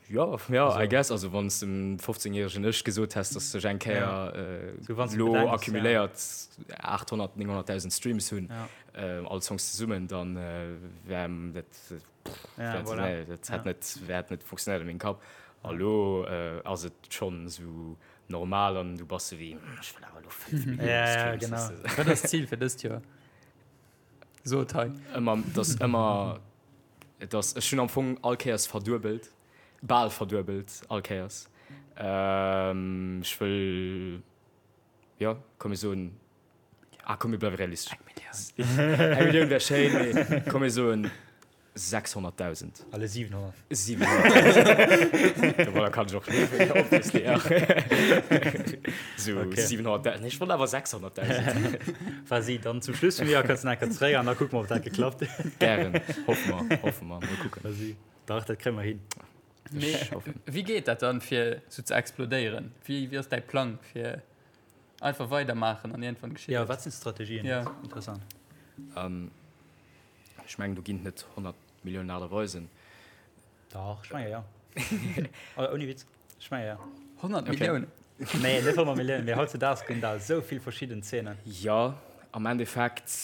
Jo, jo, I guess. Also wann s dem 15 järegen Ech gesot häss, dass ech eng Kéier elo accumuléiert 800, 900.000 Streams hunn, all Songs zesummen, dann wär dat, dat hätt net, hätt net funktionéiert a mengem Kapp. A lo ass et schonn esou normal an du bass sou wéi, ech wëll awer elo 5 Millioune Streams. Wat ass d'Zil fir dëst Joer? So et hei. Ëmmer, et ass ëmmer, et ass, ech hunn am Fong all Kéiers verduebelt, bal verduebelt all Kéiers. Ech wëll, jo, komm mir soen, ah komm mir bleiwe realistesch. Eng Millioun. Eng Millioun wär schéin, mee komm mir soen 600.000. Alle 700. 700.000. Domadder kann ech och liewen, obviously. So okay. 700.000. Ech wollt awer 600.000. Vas-y, dann zum Schluss vum Joer kënns du nach eng Kéier zeréck an da kucke mer, ob dat geklappt huet. Gären. Hoffe mer, hoffe mer. Mol kucken. Vas-y. Dach, dat kréie mer hin. Mee wéi geet dat dann, fir sou ze explodéieren? Wéi, wéi ass däi Plang, fir einfach weidermaachen an iergendwann geschitt et? Ja, wat sinn d'Strategien? Ja. Interessant. Ähm. Ech mengen, do ginn et net 100 Milliounen Aart a Weisen. Dach, ech menge jo. Ouni Witz, ech menge jo. 100 Milliounen? Nee, net 100 Milliounen, mee hautzedaags ginn der esou vill verschidden Zeenen. Jo, am Endeffekt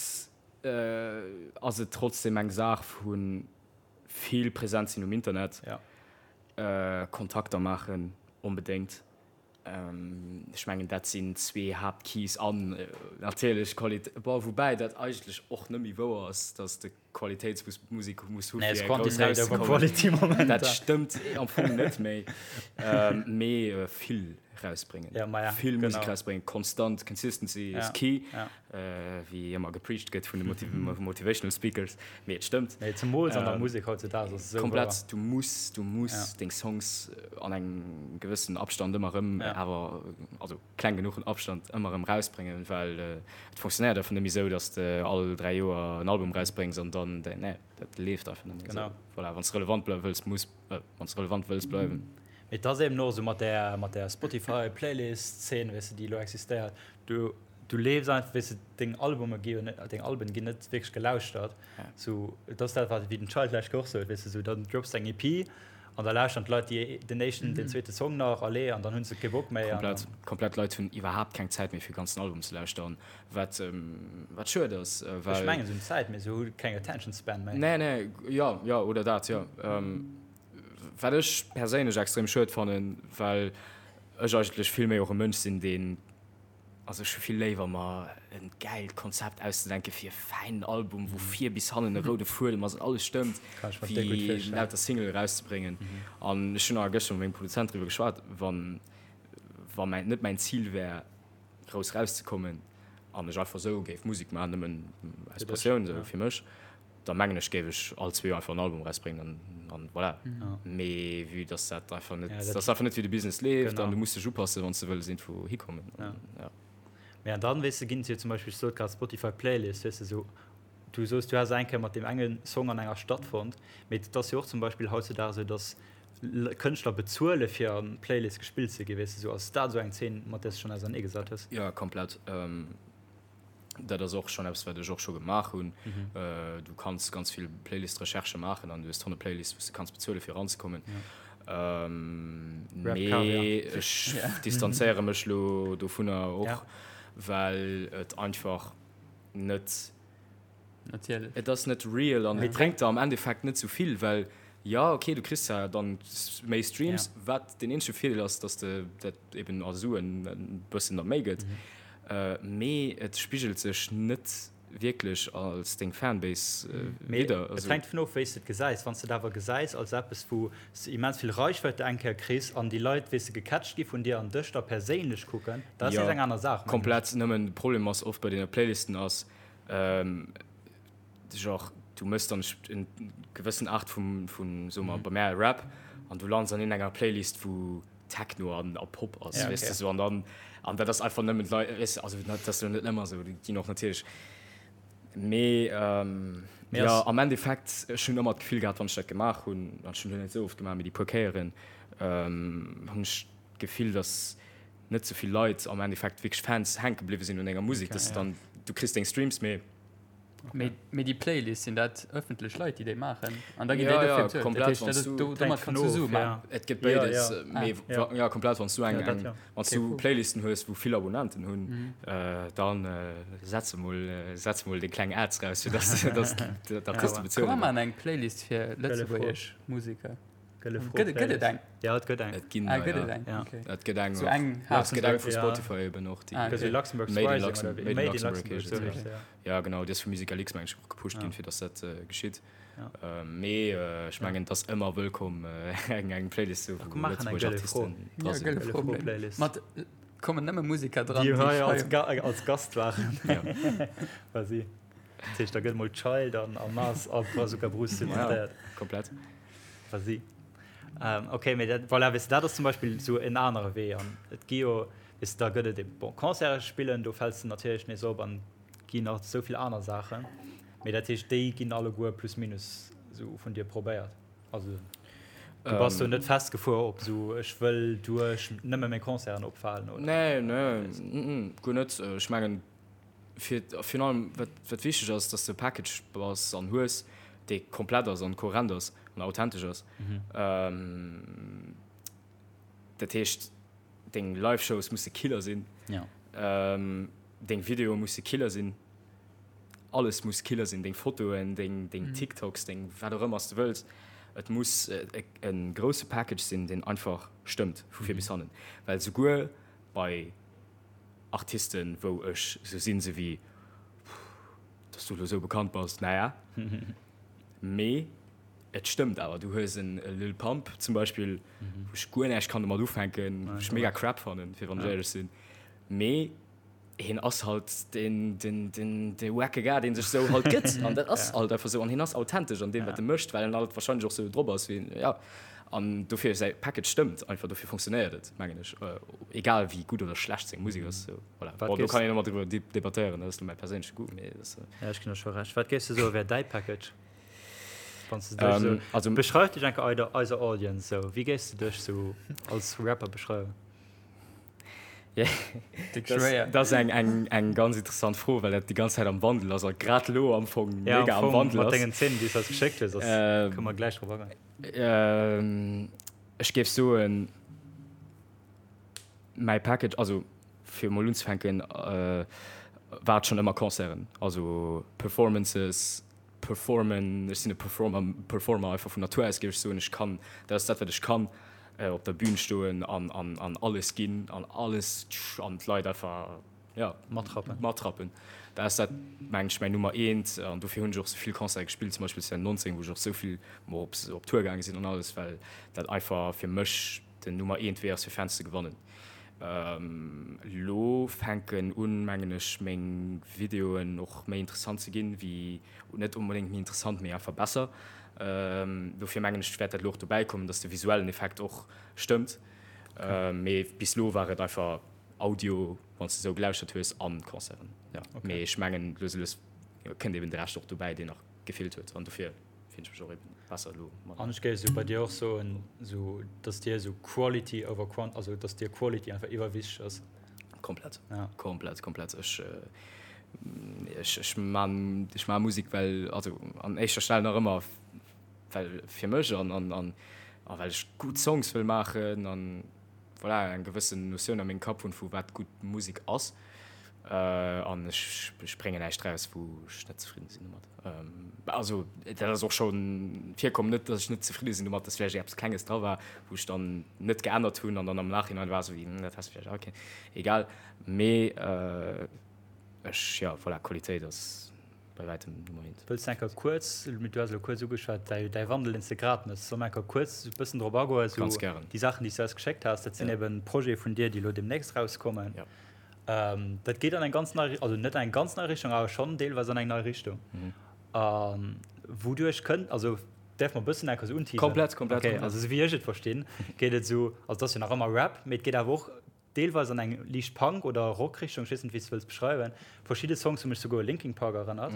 ass et trotzdem eng Saach vu vill präsent sinn um Internet, Kontakter maachen onbedéngt. Ech mengen dat sinn zwee Haaptkeys an natierlech Qualitéit, bon woubäi dat eigentlech och net méi wouer ass, datt de Qualitéitsmusek muss hu fir grouss erauszekommen. Dat stëmmt am Fong net méi. Mee vill rausbréngen, vill Musek rausbréngen, konstant, consistency is key. Wéi ëmmer gepreacht gëtt vun de Motivational Speakers, mee et stëmmt. Nee, zemools an der Musek hautzedaags ass et esou wouer. Komplett, du muss, du muss deng Songs an engem gewëssenen Abstand ëmmer erëm, awer also kleng genuchen Abstand ëmmer erëm rausbréngen, well et funktionéiert einfach net méi esou, datt s de all 3 Joer en Album rausbréngs an dann, nee, dat leeft einfach net méi esou. Voilà, wann s de relevant bleiwe wëlls, muss, wann s de relevant wëlls bleiwen. Mee et ass eben och esou mat där, mat där Spotify-Playlist-Zeen, weess de, déi elo existéiert, du, Du leefs einfach, weess de, deng Albume gi jo net, deng Alben ginn net wierklech gelauschtert. Sou, et ass dat, wat wéi den Child lech och sot, weess de, sou dann drops de eng EP. An da lauschteren d'Leit déi den éischten, den zweete Song nach, allez, an dann hunn se kee Bock méi. Komplett, komplett. D'Leit hunn iwwerhaapt keng Zäit méi fir e ganzen Album ze lauschteren, wat, wat schued ass, well. Ech mengen se hunn Zäit, mee se hu keng Attention Span méi. Nee, nee, jo, jo, oder dat, jo. Wat ech perséinlech extrem schued fannen, well ech eigentlech vill méi och e Mënsch sinn, deen Also ech hu vill léiwer mer en gäilt Konzept auszedenken fir e fäinen Album wou vir bis hannen e roude Fuedem ass an alles stëmmt, wéi lauter Single erauszebréngen. An ech hunn nach gëschter mat mengem Produzent driwwer geschwat, wann wa mäin net mäin Zil wär grouss erauszekommen an ech einfach esou géif Musek maachen, nëmmen aus Passioun esou fir mech, da mengen ech géif ech all zwee Joer einfach en Album erausbréngen an an voilà. Mee vue dass dat einfach net, dat ass einfach net wéi de Business leeft an du muss dech upassen wann s de wëlls iergendwou hikommen an ja. Mee an dann, weess de, ginn et jo zum Beispill, ech sot grad Spotify Playlist, weess de, esou, du soos du häss eng Kéier mat deem enge Song an enger Stadt fonnt, mee et ass jo och zum Beispill hautzedaags esou, dass Kënschtler bezuele fir an Playlist gespillt ze ginn, weess de, esou. Ass dat esou eng Zeen mat där s de schonn auserneegesat hues? Jo, komplett. Dat ass och schonn eppes, wat ech och scho gemaach hunn. Du kanns ganz vill Playlist-Recherchë maachen an du hues tonne Playlists, wou s de kanns bezuele fir eranzekommen. Mee ech distanzéiere mech lo dovunner och, well et einfach net. Natierlech. Et ass net real an et bréngt der am Endeffekt net sou vill, well jo, okay, du kriss zwar dann méi Streams, wat deen eenzege Virdeel ass, dass de dat eben a Suen e bëssen da méi gëtt, mee et spigelt sech net wierklech als deng Fanbase widder. Et hänkt dovun of, wéi s de et gesäis. Wann s de et awer gesäis als eppes, wou s de immens vill Reichweite eng Kéier kriss an déi Leit, weess de, gecatcht gi vun dir an dech da perséinlech kucken, dat ass nees eng aner Saach, mengen ech. Komplett. Nëmmen de Problem ass oft bei deene Playlisten ass, Genre du mëss dann en gewëssen Art vum vun soe mer bei mär Rap an du lands an iergendenger Playlist wou Techno an a Pop ass weess de sou an dann an dat ass einfach nëmmen d'Leit weess de also dat ass jo net ëmmer sou déi ginn och natierlech mee jo am Endeffekt ech hunn ëmmer d'Gefill gehat wann ech dat gemaach hunn an ech hunn dat net esou oft gemaach mee déi puer Kéieren hunn ech d'Gefill datt net sou vill Leit am Endeffekt wierklech Fans hänke bliwwe sinn un denger Musek, dass dann du kriss deng Streams, mee. Mee, mee déi Playlists, sinn dat ëffentlech Leit, déi déi maachen? An da ginn déi dofir bezuelt? Dat heescht, dat ass, do, domat kanns du Sue maachen. Et gëtt béides, mee jo, komplett, wann s du eng, eng, wann s du Playlisten hues, wou vill Abonnenten hunn, dann setz emol, setz emol deng kleng Ads raus, fir dass, dass d'Artiste bezuelen. Komm mer maachen eng Playlist fir lëtzebuergesch Museker. Gëlle Fro. Gëtt et eng? Ja, et gëtt eng. Et ginn ah, gëtt et eng. Ja. Okay. Et gëtt eng. So eng et gëtt eng vu Spotify eben och déi. Ah, okay. Luxembourg Made in Luxembourg. Made in Luxembourg. Made in ja. ja genau, déi ass vu Musical X meng ech och gepusht ginn, fir datt dat äh, geschitt. Ja. Äh, mee äh, ech mengen, et ass ëmmer wëllkomm äh, eng eng Playlist zu wou lëtzebuergesch Artisten dra sinn. Ja, Gëlle Fro Playlist. Mat kommen nëmme Musiker dran, déi hei als, Ga als Gast waren. Ja. Quasi. Dat heescht, da gëtt mol Child an a Mars a Brazuca Bruce zitéiert. Ja, komplett. Vas-y. Ähm, okay, mee dat, voilà, weess de, dat ass zum Beispill esou en anere Wee. An et gi jo, weess de, da gëtt et eben, bon, Concerte spillen, do fäls de natierlech nees op an et ginn nach esou vill aner Saachen. Mee dat heescht, déi ginn alleguer plus minus esou vun dir probéiert. Also du bass do net festgefuer op esou, ech wëll duerch nëmme meng Concerten opfalen, oder? Nee, nee, guer net. Ech mengen, fir virun allem wat wat wichteg ass, dass de e Package bass an hues, dee komplett ass an kohärent ass an authentesch ass. Dat heescht deng Live-Shows musse Killer sinn, deng Videoe musse Killer sinn, alles muss Killer sinn, deng Fotoen, deng deng TikToks, deng wat och ëmmer s de wëlls. Et muss e grousse Package sinn, deen einfach stëmmt vu vir bis hannen, well souguer bei Artisten wou ech sou sinn sou wéi dass du lo sou bekannt bass, naja mee et stëmmt awer. Du hues en Lil Pump zum Beispill wou ech guer näischt kann domat ufänken, wou ech mega crap fannen fir wann ech éierlech sinn, mee hien ass halt den den den de wacke Gars deen sech sou halt gëtt an dat ass halt einfach sou an hien ass authentesch an deem wat e mécht, well en halt wahrscheinlech och sou drop ass wéi en ja. An dofir säi Package stëmmt einfach, dofir funktionéiert et, mengen ech, egal wéi gutt oder schlecht seng Musek ass. Sou, voilà. Bon, do kann een ëmmer driwwer debattéieren, dat ass lo mäi perséinleche Goût, mee dat ass. Ja, ech ginn der scho Recht. Wat géifs de soe wär däi Package? Wann s de dech sou. Also. Beschreif dech eng Kéier eiser Audience sou. Wéi géifs de dech sou als Rapper beschreiwen? Dat ass eng ganz interessant Fro, well dat déi ganz Zäit am Wandel ass a grad elo am Fong mega am Wandel ass. Mat dengen Zeen, déi s de eis geschéckt hues, kënne mer gläich drop agoen. Ech géif soen, mäi Package, also fir emol unzefänken, war et schonn ëmmer Concerten, also Performances, Performen, ech sinn e Performer, Performer einfach vun Natur aus, géif ech soen. Ech kann, dat ass dat, wat ech kann, op der Bühn stoen an, an, an alles ginn an alles an d'Leit einfach, jo, Matrappen. matrappen. Dat ass dat, mengen ech, mäin Nummer eent an dofir hunn ech och sou vill Concerte gespillt, zum Beispill 2019, wou ech och sou vill mol op, op Tour gaange sinn an alles, well dat einfach fir mech den Nummer eent Wee ass, fir Fans ze gewannen. Lo fänken un, mengen ech, meng Videoen och méi interessant ze ginn, wéi, net onbedéngt méi interessant, mee einfach besser. Dofir mengen ech, wäert dat elo och dobäi kommen, dass de visuellen Effekt och stëmmt. Mee bis elo war et einfach Audio, wann s de esou gelauschtert hues, an Concerten, jo. Mee ech mengen, lues a lues kënnt eben de Rescht och dobäi, deen nach gefeelt huet, an dofir. Finn ech mech och eben besser elo mat. An ech géif esou bei dir och soen, esou dass dir esou Quality over Quant, also dass dir Quality einfach iwwerwichteg ass. Komplett, ja. Komplett, komplett. Ech, ech, ech man, ech man Musek, well, also an éischter Stell nach ëmmer well fir mech an, an, an, a well ech gutt Songs wëll maachen an voilà, eng gewëssen Notioun a mengem Kapp hunn, vu wat gutt Musek ass. An ech, ech bréngen näischt raus, wou ech net zefridden sinn domat. Also dat ass och scho virkomm, net datt ech net zefridde sinn domat, datt vläicht eppes Klenges dra war, wou ech dann net geännert hunn an dann am Nachhinein war esou wéi, hm, dat häss de vläicht och kéinten. Egal. Mee ech, jo, voilà, Qualitéit ass bei wäitem Nummer eent. Wëlls de enker kuerz, du has elo kuerz ugeschwat, däi däi Wandel, deen s de grad méchs, solle mer enker kuerz e bëssen drop agoen, esou Ganz gären. déi Saachen, déi s du eis geschéckt has, dat sinn Ja. eben Projete vun dir, déi elo deemnächst rauskommen. Ja. Dat geet an eng ganz nei, also net an eng ganz nei Richtung, awer schonn deelweis an eng nei Richtung. A wouduerch kënnt, also däerf mer e bëssen enker esou unteasern? Komplett, komplett, Okay, also esou wéi ech et verstinn, geet et esou, also et ass jo nach ëmmer Rap, mee et geet awer och deelweis an eng liicht Punk oder Rock-Richtung, ech weess net, wéi s de wëlls beschreiwen. Verschidde Songs hu mech souguer u Linkin Park erënnert.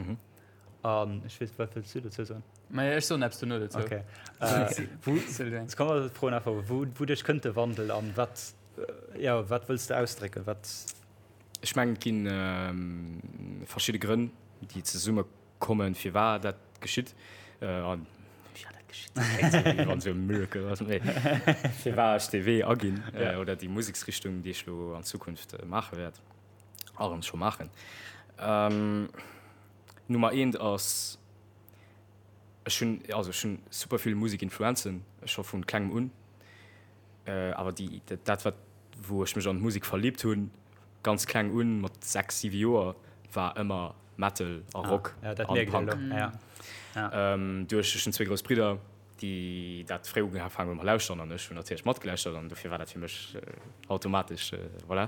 An ech weess, wat wëlls du dozou soen? Maja, ech soen eppes dono dozou. Okay. Wou, ech kann mer froen einfach, wou, wouduerch kënnt de Wandel an wat, jo, wat wëlls de ausdrécken? Wat. Ech mengen, et gi verschidde Grënn, déi zesumme kommen, firwat dat geschitt. An firwat dat geschitt, dat kléngt esou, wéi wann esou e Miracle ass, mee firwat ech dee Wee aginn oder déi Museksrichtung, déi ech elo an Zukunft maache wäert a erëm scho maachen. Nummer eent ass, ech hunn, also ech hunn super vill Musekinfluenzen scho vu klengem un, awer déi, dat wat, wou ech mech an d'Musek verlibt hunn, ganz kleng un, mat 6, 7 Joer, war ëmmer Metal a Rock an Punk. Duerch, ech hunn zwéi grouss Bridder, déi dat fréi ugefaangen hunn mat lauschteren an ech hunn natierlech matgelauschtert an dofir war dat fir mech automatesch, voilà.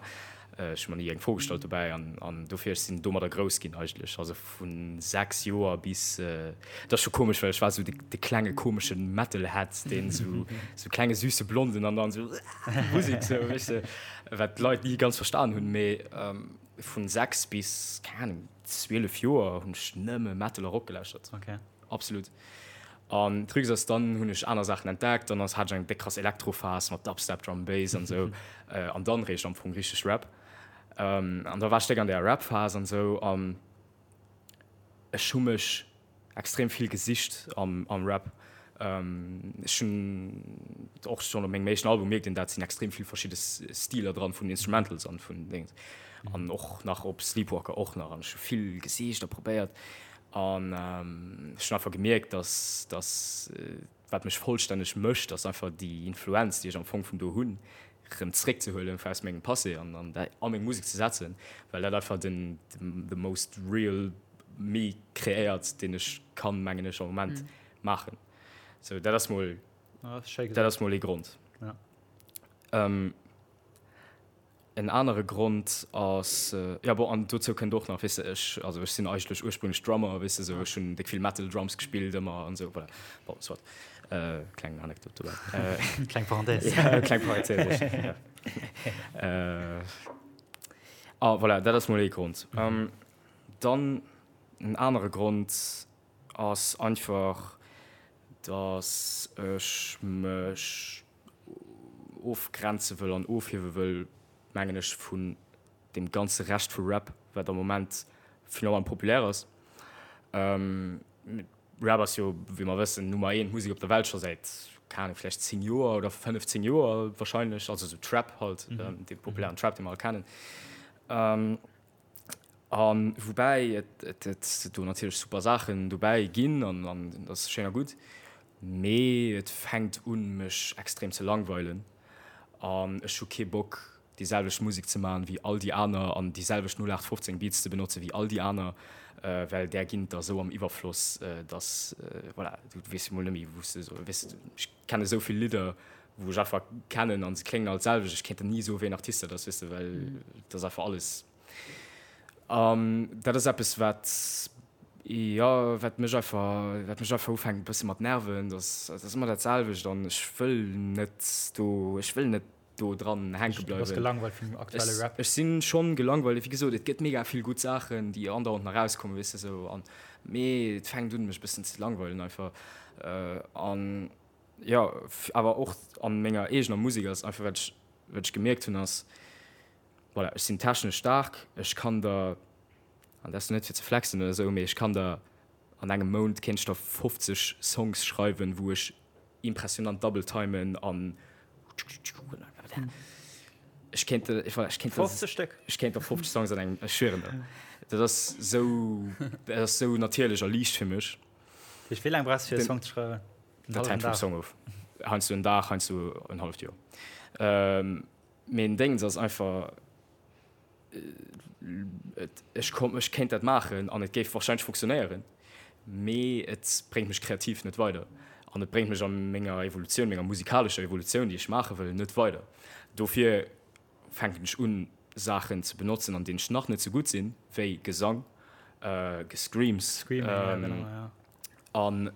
Ech hu mer ni eng Fro gestallt dobäi an an dofir, ech sinn domadder grouss ginn eigentlech, also vu 6 Joer bis, et ass scho komesch, well ech war esou de de klenge komesche Metalhead, deen esou esou klenge süsse Blonden an dann esou Musek esou, weess de, wat d'Leit ni ganz verstan hunn, mee vun 6 bis, keng Ahnung, 12 Joer hunn ech nëmme Metal a Rock gelauschtert. Absolut. An Trucs ass dann hunn ech aner Saachen entdeckt, dann ass hat ech eng déck krass Elektrophas mat Dubstep, Drum and Bass an esou an dann réischt am Fong richteg Rap. An da war ech déck an där Rap-Phas an esou an ech hu mech extrem vill gesicht am am Rap. Ech hunn och schonn op mengem éischten Album mierkt een dat, sinn extrem vill verschidde Stiler dran vun Instrumentals an vun Déngens an och nach op Sleepwalker och nach an ech hu vill gesicht a probéiert. An ech hunn einfach gemierkt, dass, dass wat mech vollstänneg mécht, ass einfach déi Influenz, déi ech am Fong vun do hunn, erëm zréckzehuelen aus mengem Passé an an dat a meng Musek ze setzen, well dat einfach den the most real me kreéiert, deen ech kann, mengen ech, am Moment maachen. Sou, dat ass mol, dat ass mol ee Grond. En anere Grond ass, jo bon, an dozou kënnt och nach, weess de, ech, also ech sinn eigentlech ursprünglech Drummer, weess de, sou ech hunn déck vill Metal Drums gespillt ëmmer an esou, voilà. Bon, soit, kleng Anekdot dobäi. Kleng Parenthèse. Ja, kleng Parenthèse, ja. A voilà, dat ass mol ee Grond. Dann en anere Grond ass einfach, dass ech mech ofgrenze wëll an ofhiewe wëll. mengen ech, vun deem ganze Rescht vu Rap, wat am Moment finalement populär ass. Rap ass jo, wéi mer wëssen, Nummer eent Musek op der Welt scho säit, keng Ahnung, vläicht 10 Joer oder 15 Joer wahrscheinlech, also sou Trap halt, dee populären Trap, dee mer all kennen. A woubäi et et do natierlech super Saachen dobäi ginn an an dat ass schéin a gutt, mee et fänkt un mech extrem ze langweilen an ech hu kee Bock déi selwecht Musek ze man wéi all déi aner an déi selwecht 0815 Beats ze benotze wéi all déi aner, well där ginn et der esou am Iwwerfloss, dass voilà, du weess jo mol net méi wou s de esou, weess de, ech kenne esou vill Lidder wou ech einfach kennen an se kléngen all d'selwecht, ech kéint der ni soe wéi en Artist dat ass, weess de, well et ass einfach alles. An dat ass eppes, wat, jo, wat mech einfach, wat mech einfach ufänkt e bësse mat nerven, dass dat ass ëmmer dat selwecht an ech wëll net do, ech wëll net do dran hänke Du bass bleiwen. gelangweilt vum aktuelle Ech, Rap? ech si schonn gelangweilt. Wéi gesot, et gëtt mega vill gutt Saachen, déi andauernd nach erauskommen, weess de sou an, mee et fänkt un mech e bëssen ze langweilen einfach. An jo, awer och an menger eegener Musek ass einfach, wat ech, wat ech gemierkt hunn ass, Voilà, ech sinn technesch staark, ech kann der, an dat ass net fir ze flexen oder esou, mee ech kann der an engem Mount kéint ech der 50 Songs schreiwen, wou ech impressionant double timen an ech kéint der, voilà, ech kéint der, 50 Stéck? ech kéint der 50 Songs an engem, ech schwieren der, dat ass esou, dat ass esou natierlech a liicht fir mech. Dat heescht, wéi laang brauchs du fir e Song ze schreiwen? En Dat hallwen hänkt vum Dag? Song of, heiansdo en Dag, heiansdo en halleft Joer. Mee den Déngens ass einfach, ech komm, ech kéint dat maachen an et géif warscheinlech funktionéieren, mee et bréngt mech kreativ net weider an et bréngt mech a menger Evolutioun, menger musikalescher Evolutioun, déi ech maache wëll, net weider. Dofir fänken ech un, Saachen ze benotzen, an deenen ech nach net sou gutt sinn, wéi Gesang, Gescreams. Screaming, ja, genau, ja. An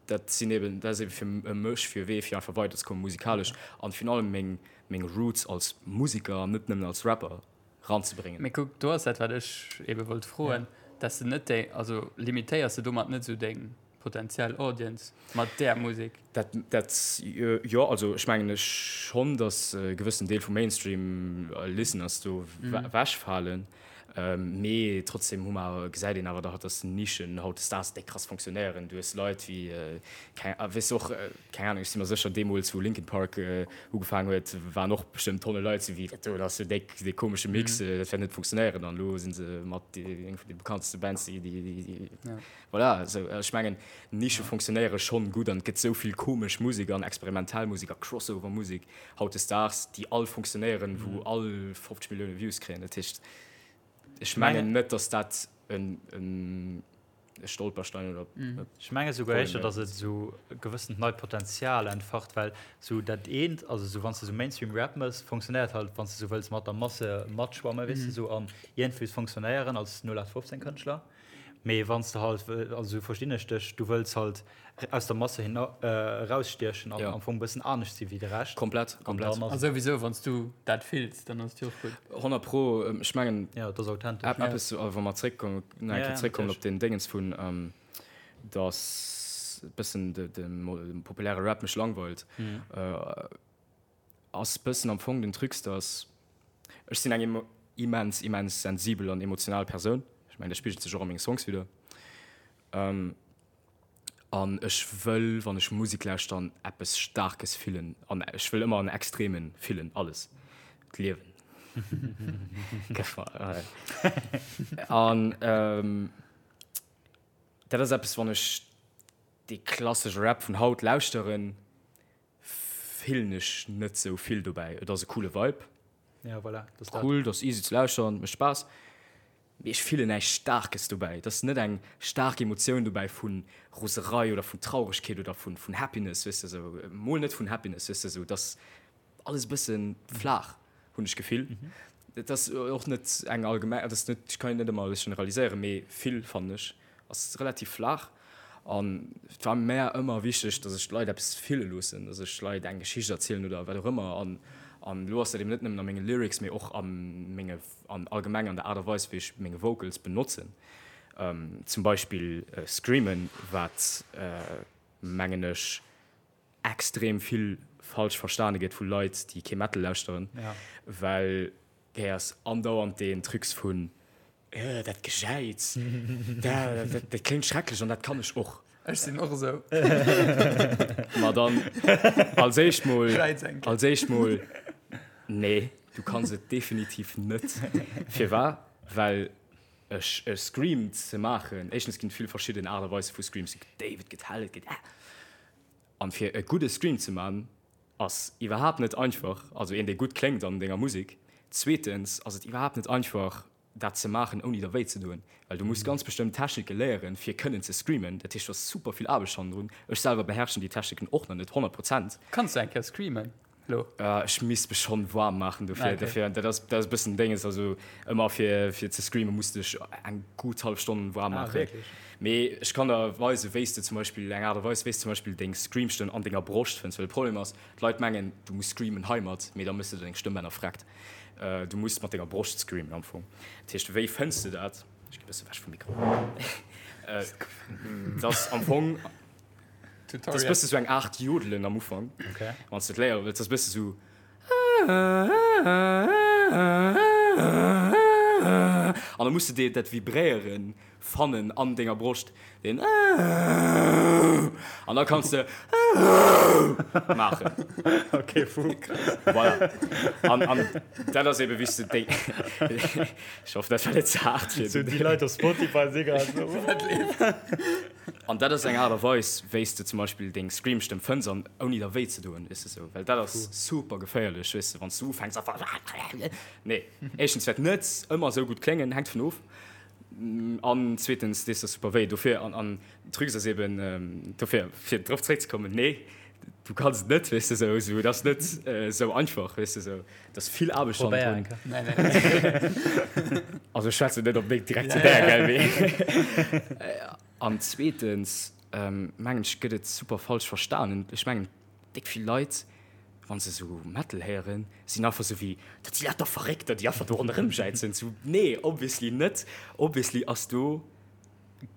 dat sinn eben, dat ass eben fir mech fir e Wee fir einfach weiderzekommen musikalesch an virun allem meng meng Roots als Musiker an net nëmmen als Rapper ranzebréngen. Mee kuck, do ass dat wat ech ebe wollt froen, dass de net déi, also limitéiers de domat net esou deng potentiell Audience mat där Musek? Dat, dat, jo, also ech mengen ech schonn, dass e gewëssen Deel vum Mainstream Listeners do wechfalen. Mee trotzdem hu mer, gesäit een awer dach, dass Nischen hautdesdaags déck krass fonctionnéieren. Du hues Leit wéi, keng, weess och, keng Ahnung, ech si mer sécher, deemools wou Linkin Park ugefaangen huet, waren och bestëmmt Tonne Leit sou wéi, dat do ass jo déck dee komesche Mix, dat wäert net funktionéieren. An elo si se mat eng vun de bekannteste Bands, déi, déi, voilà. Esou, ech mengen, Nische fonctionnéiere schonn gutt an et gëtt esou vill komesch Musek an experimentell Musek a Crossover-Musek hautdesdaags, déi all funktionéieren, wou all 50 Millioune Views kréien. Dat heescht, ech mengen net, datt dat e Stolperstein oder e Ech menge souguer Problem éischter, wär. datt et esou e gewëssent neit Potenzial entfacht, well esou dat eent, also esou wann s de esou Mainstream-Rap mëss, funktionéiert halt, wann s de esou wëlls mat der Masse matschwammen, weess de, esou an iergendwéi funktionéieren als 0815-Kënschtler. Mee wann s de halt, also esou verstinn ech dech, du wëlls halt aus der Masse hin erausstiechen an am Fong e bëssen anescht si wéi de Rescht. Komplett, komplett. A souwisou, wann s du dat fills, dann ass et jo och gutt. 100 pro, ech mengen. Jo, et ass authentesch. Eppes, wa mer zréckkommen, nach eng Kéier zréckkommen op deen Déngens vun, dass e bëssen de populäre Rap mech langweilt. Ass bëssen am Fong den Trucs, dass ech sinn eng immens immens sensibel an emotional Persoun. Ech mengen dat spigelt sech och a menge Songs widder. An ech wëll wann ech Musek lauschteren eppes Staarkes fillen an ech wëll ëmmer an Extremen fillen, alles, d'Liewen. An dat ass eppes wann ech dee klassesche Rap vun haut lauschteren, Fillen ech net sou vill dobäi. Et ass e coole Vibe. Ja, voilà, dat ass dat. Cool, dat ass easy ze lauschteren, mécht Spaass. Mee ech fillen näischt Staarkes dobäi. Et ass net eng staark Emotioun dobäi vu Roserei oder vun Trauregkeet oder vun Happiness, weess de, sou. Mol net vun Happiness, weess de, sou. Et ass alles e bësse flaach, hunn ech d'Gefill. Et ass och net eng allgemeng, et ass net, ech kann net ëmmer alles generaliséieren, mee vill, fannen ech, ass relativ flaach. An et war mär ëmmer wichteg, datt ech d'Leit eppes fille loossen, datt ech Leit eng Geschicht erzielen oder wat och ëmmer. An an elo ass dat eben net nëmmen a menge Lyrics, mee och a menge, an allgemeng an der Aart a Weis, wéi ech meng Vocals benotzen. Zum Beispill Screamen, wat mengen ech extrem vill. falsch verstane gëtt vu Leit, déi kee Metal lauschteren, well héiers andauernd deen Trucs vun, Äh, dat Gejäiz, dat, dat kléngt schrecklech an dat kann ech och. Ech sinn och esou. Ma dann, als éischt mol, als éischt mol, nee, du kanns et definitiv net. Firwat? Well e Scream ze maachen, éischtens ginn et vill verschidden Aart a Weise vu Screams, et gëtt déif, et gëtt hell, et gëtt. An fir e gudde Scream ze man, ass iwwerhaapt net einfach, also een dee gutt kléngt an denger Musek. Zweetens ass et iwwerhaapt net einfach dat ze maachen ouni der wéi ze doen, well du muss ganz bestëmmt Technike léieren fir kënnen ze screamen. Dat heescht do ass super vill Aarbecht hannendrun. Ech selwer beherrschen déi Techniken och nach net 100 Prozent. Kanns du eng Kéier screamen? Lo. Ech misst mech schonn waarm maachen dofir. Dofir, dat ass, dat ass e bëssen Dénges. Also ëmmer fir, fir ze screamen muss de dech eng gutt hallef Stonn waarm maachen. Ah, wierklech? Mee ech kann der weisen, wéi s de zum Beispill, eng Aart a Weis, wéi s de zum Beispill deng Screamstëmm an denger Broscht fënns. Well de Problem ass, d'Leit mengen, du muss screamen heimat, mee da méchs de deng Stëmmbänner vreckt. Du muss mat denger Broscht screamen am Fong. Dat heescht, wéi fënns de dat? Ech gi bësse wech vum Mikro. Dat ass am Fong. Dat ass bësse sou eng Aart Jodelen am Ufank, wann s de et léiere wëlls. Dat ass bësse sou. An da muss de dat Vibréiere fannen an denger Broscht, deen An da kanns de maachen. Ok, fou. Voilà. An, an dat ass ebe wéi s de déi. Ech hoffen, dat war net ze haart fir. Sou déi Leit op Spotify si grad sou. Wat leeft? An dat ass eng Aart a Weis, wéi s de zum Beispill deng Scream-Stëmm fënns an ouni der wéi ze doen, weess de sou. Well dat ass super geféierlech, weess de, wann s du ufänks einfach Nee, éischtens wäert net ëmmer esou gutt kléngen, hänkt vun of, an zweetens dees der super wéi. Dofir, an an Trucs ass eben, dofir, fir drop zréckzekommen, nee, du kanns et net, weess de sou, sou, et ass net esou einfach, weess de sou. Et ass vill Aarbecht Probéier hannendrun. eng Kéier. Also ech schwätzen net op meng direkt zu där, gell, mee an zweetens mengen ech gëtt et super falsch verstanen. Ech mengen déck vill Leit, wa se sou Metal héieren, sinn einfach sou wéi, dat si lauter Verréckter, déi einfach do ronderëm jäizen. Sou nee, obviously net. Obviously ass do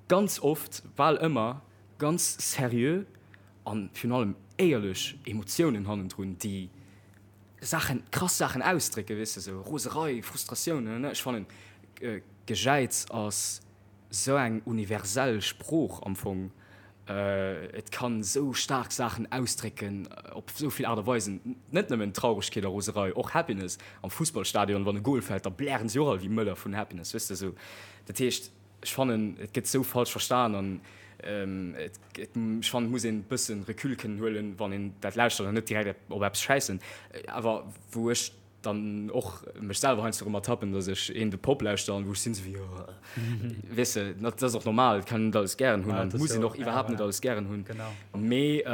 ganz oft, bal ëmmer ganz seriö an virun allem éierlech Emotiounen hannendrun, déi Saachen, krass Saachen ausdrécken, weess de, sou Roserei, Frustratioun, ne, ech fannen Gejäiz ass sou eng universell Sprooch am Fong, et kann sou staark Saachen ausdrécken op sou vill Aart a Weisen, net nëmmen Trauregkeet a Roserei, och Happiness, am Fussballstadion wann e Goal fält, da blären si och all wéi Mëller vun Happiness, weess de, sou, dat heescht. Ech fannen et gëtt sou falsch verstan an et ech fannen et muss een bëssen Recul kënnen huelen wann een dat lauschtert an net direkt op eppes schäissen. Awer wou ech dann och mech selwer heiansdo erëm ertappen, datt ech een de Pop lauschter an wou ech sinn sou wéi oh weess de, dat ass och normal, et kann een net alles gären hunn an et muss een och iwwerhaapt net alles gären hunn. Mee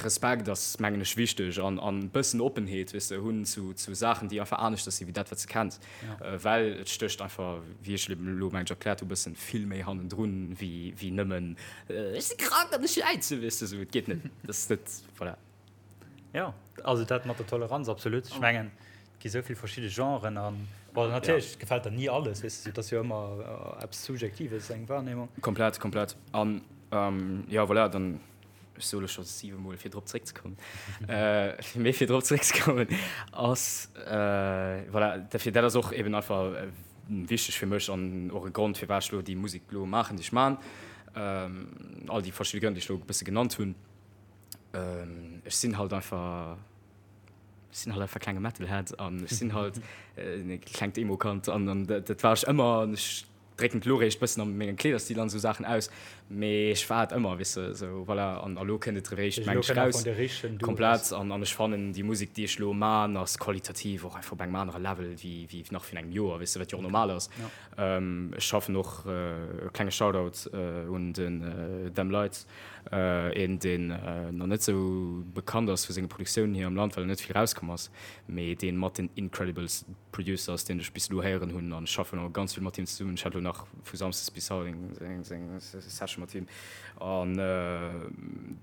Respekt ass mengen ech wichteg an an bëssen Oppenheet weess de hunn zu Saachen déi einfach aneschters sinn wéi dat wat s de kenns. Well et stécht einfach, wéi ech elo mengen ech erkläert hu, bëssen vill méi hannendrun wéi wéi nëmmen ech si krank an ech jäizen, weess de sou. Et geet net, dat ass net, voilà. Jo, also dat mat der Toleranz, absolut. Ech mengen, et gi sou vill verschidde Genren an, bon, natierlech gefält der ni alles, weess de, et ass jo ëmmer eppes Subjektives, eng Wahrnehmung. Komplett, komplett. An jo, voilà, dann. Ech soe lo scho siwe Mol, fir drop zeréckzekommen, mee fir drop zeréckzekommen ass, voilà, dofir, dat ass och eben einfach wichteg fir mech an och e Grond, firwat ech lo déi Musek lo maachen, déi ech maachen, all déi verschidde Grënn, déi ech lo e bësse genannt hunn. Ech sinn halt einfach, ech sinn halt einfach klenge Metalhead an ech sinn halt e klengt Emo-Kand an dat war ech ëmmer an ech drécken et elo réischt bëssen a mengem Kleederstil an esou Saachen aus, mee ech war et ëmmer, weess de, esou voilà, an elo kënnt et réischt meng ech raus komplett an an ech fannen déi Musek déi ech elo man ass qualitativ och einfach op engem anere Level wéi wéi nach virun engem Joer, weess de, wat jo och normal ass. Ech schaffen och, e klenge Shoutout un den Them Lights, een deen nach net esou bekannt ass vu senge Produktiounen hier am Land, well en net vill rauskomm ass, mee deen mat den incredibles Producer ass deen ech bis elo héieren hunn an ech schaffen och ganz vill mat him zesummen. Ech hat elo nach vu Samsdes bis haut eng Session mat him an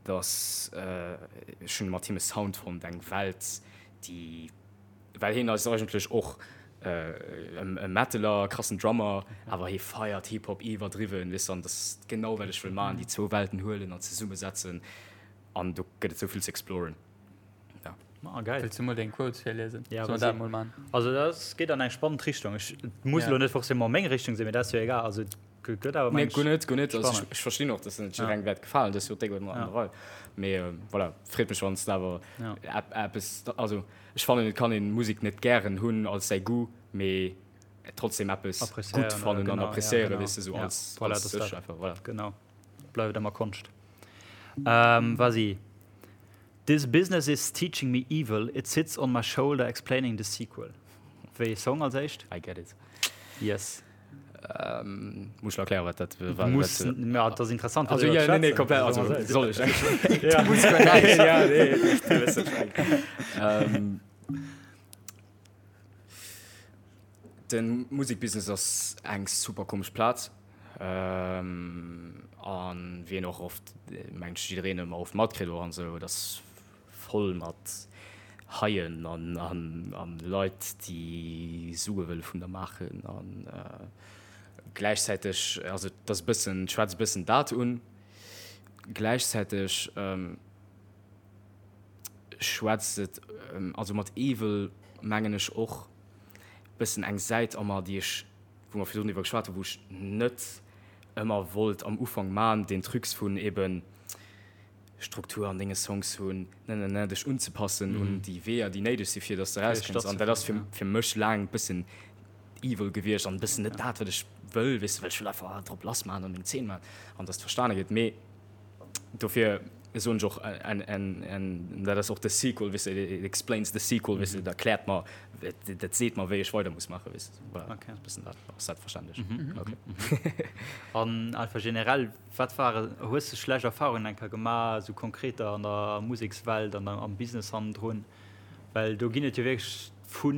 dass ech hunn mat him e Sound fonnt, eng Welt déi, well hien ass eigentlech och e Metaler, krassen Drummer, awer hie feiert Hip Hop iwwerdriwwen, weess de, an dat ass genau wat ech wëll maachen, déi zwou Welten huelen an zesummesetzen an do gëtt et esou vill ze exploren. Ah, geil. Wëlls du mol deng Quotes virliesen? Ja, Soll mer dat mol man? Also dat geet an eng spannend Richtung. Ech muss elo net forcément meng Richtung sinn, mee dat ass jo egal. Also et gëtt awer Nee, guer net, guer net. Also ech verstinn och, dass net jidderengem wäert gefalen. Dat ass jo déck an der Rei. Mee voilà, freet mech, wann s de awer eppes, also ech fannen, et kann een Musek net gären hunn als säi Goût, mee trotzdem eppes gutt fannen an appreciéieren, weess de, sou als sech einfach, voilà. Genau, bleift ëmmer Konscht. Vas-y. This business is teaching me evil, it sits on my shoulder explaining the sequel. Wéi ee Song als éischt? I get it. Yes. Muss ech erklären, wat dat war? Muss, ja, dat ass interessant. Also, ja, nee, nee, komplett, also, soll ech? Ja. Du muss guer näischt. Ja, nee, du wëss, wat ech mengen. De Musekbusiness ass eng super komesch Plaz. An wéi een och oft, mengt ech, jiddereen ëmmer oft matkritt och an esou, et ass voll mat Haien an an Leit, déi Sue wëlle vun der maachen. An gläichzäiteg, also et ass e bëssen, schwätzt e bëssen dat un, gläichzäiteg schwätzt et, also mat Evil mengen ech och bëssen eng Säit a mer, déi ech, wou mer virdrun driwwer geschwat hunn, wou ech net ëmmer wollt am Ufank man, deen Trucs vun eben Struktur an denge Songs hunn, ne ne ne, dech unzepassen un déi Weeër, déi néideg si fir dass de erauskënns. An dat ass fir fir mech laang e bëssen evil gewiescht an e bëssen net dat, wat ech wëll, weess de, well ech wëll einfach drop lass man an meng Zeen man an dass et verstane gëtt. Mee Dofir soen ech och, an dat ass och de Sequel, weess de, it explains the sequel, weess de, dat erkläert mer, dat seet mer, wéi ech weider muss maachen, weess de. Voilà, Okay. e bëssen dat. Ass dat verständlech? Okay. An einfach generell, wat ware, hues de schlecht Erfarungen eng Kéier gemaach, esou konkreter an der Musekswelt an am Business hannendrun? Well do ginn et jo wierklech vu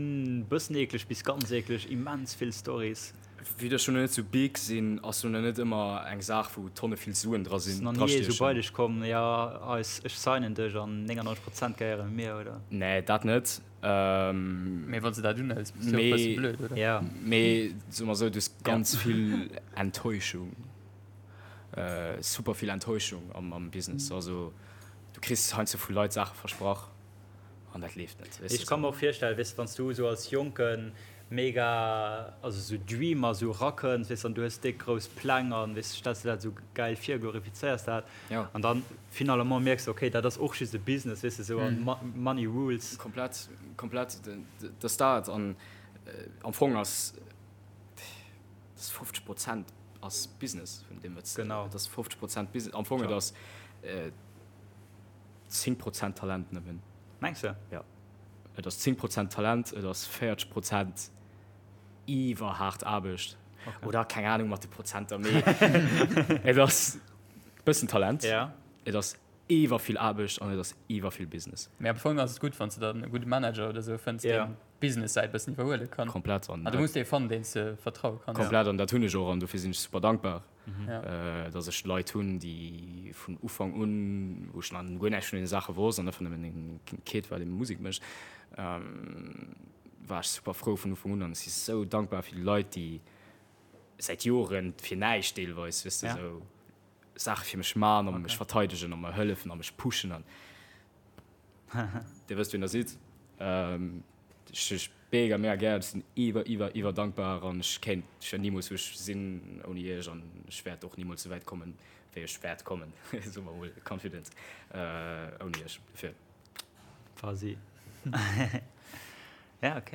bëssen eekleg bis ganz eekleg immens vill Stories. Vue dass ech lo net sou big sinn, ass lo net ëmmer eng Saach wou Tonne vill Suen dra sinn, Ass nach ni ee sou bei dech komm, jo eis, ech signen dech an 99 Prozent gehéiere mir, oder? Nee, dat net. Mee wann s de dat unhëls, bass du och e bësse blöd, oder? Jo. Mee soe mer sou, du hues ganz vill Enttäuschung, super vill Enttäuschung am Business. Also du kriss heiansdo vu Leit Saache versprach. An dat leeft net. Ech ka mer och virstellen, weess de, wann s du esou als Jonken mega, also esou Dreamer esou erakënns, weess de, an du hues déck grouss Pläng an, weess de, stells de dat esou gäil vir, glorifizéiers dat an dann finalement mierks de, okay, dat ass och just e Business, weess de, esou an Money rules. Komplett, komplett, dat ass dat. An am Fong ass dat 50 Prozent ass Business vun deem, wat s de, dat ass 50 Prozent Business. Am Fong et ass. 10 Prozent Talent nëmmen. Mengs de? Jo. Et ass 10 Prozent Talent, et ass 40 Prozent iwwerhaart Aarbecht. Okay. Oder keng Ahnung mat de Prozenter, mee et ass bëssen Talent, ja. et ass iwwer vill Aarbecht an et ass iwwer vill Business. Mee am Fong ass et gutt, wann s de dann e gudde Manager oder esou fënns, ja. deen d'Business-Säit bëssen iwwerhuele kann. Komplett. An du muss dee fannen, deen s de vertraue kanns. Komplett, an dat hunn ech och an dofir sinn ech super dankbar. Dass ech Leit hunn, déi vun Ufank un, wou ech nach guer näischt vun deene Saache wosst an einfach nëmmen e Kid war, dee Musek mécht, war ech super frou vun Ufank un. An ech si sou dankbar fir déi Leit, déi säit Joren fir näischt deelweis, weess de, sou Saache fir mech man a mech verteidegen a mer hëllefen a mech pushen. An Dir wësst, wien Der sidd. Ech mega mega gär, ech sinn iwwer iwwer iwwer dankbar an ech kéint ech wär nimools wou ech sinn ouni iech an ech wäert och nimools esou wäit kommen wéi ech wäert kommen, soe mer mol confident, ouni iech dofir. Quasi. Ja ok.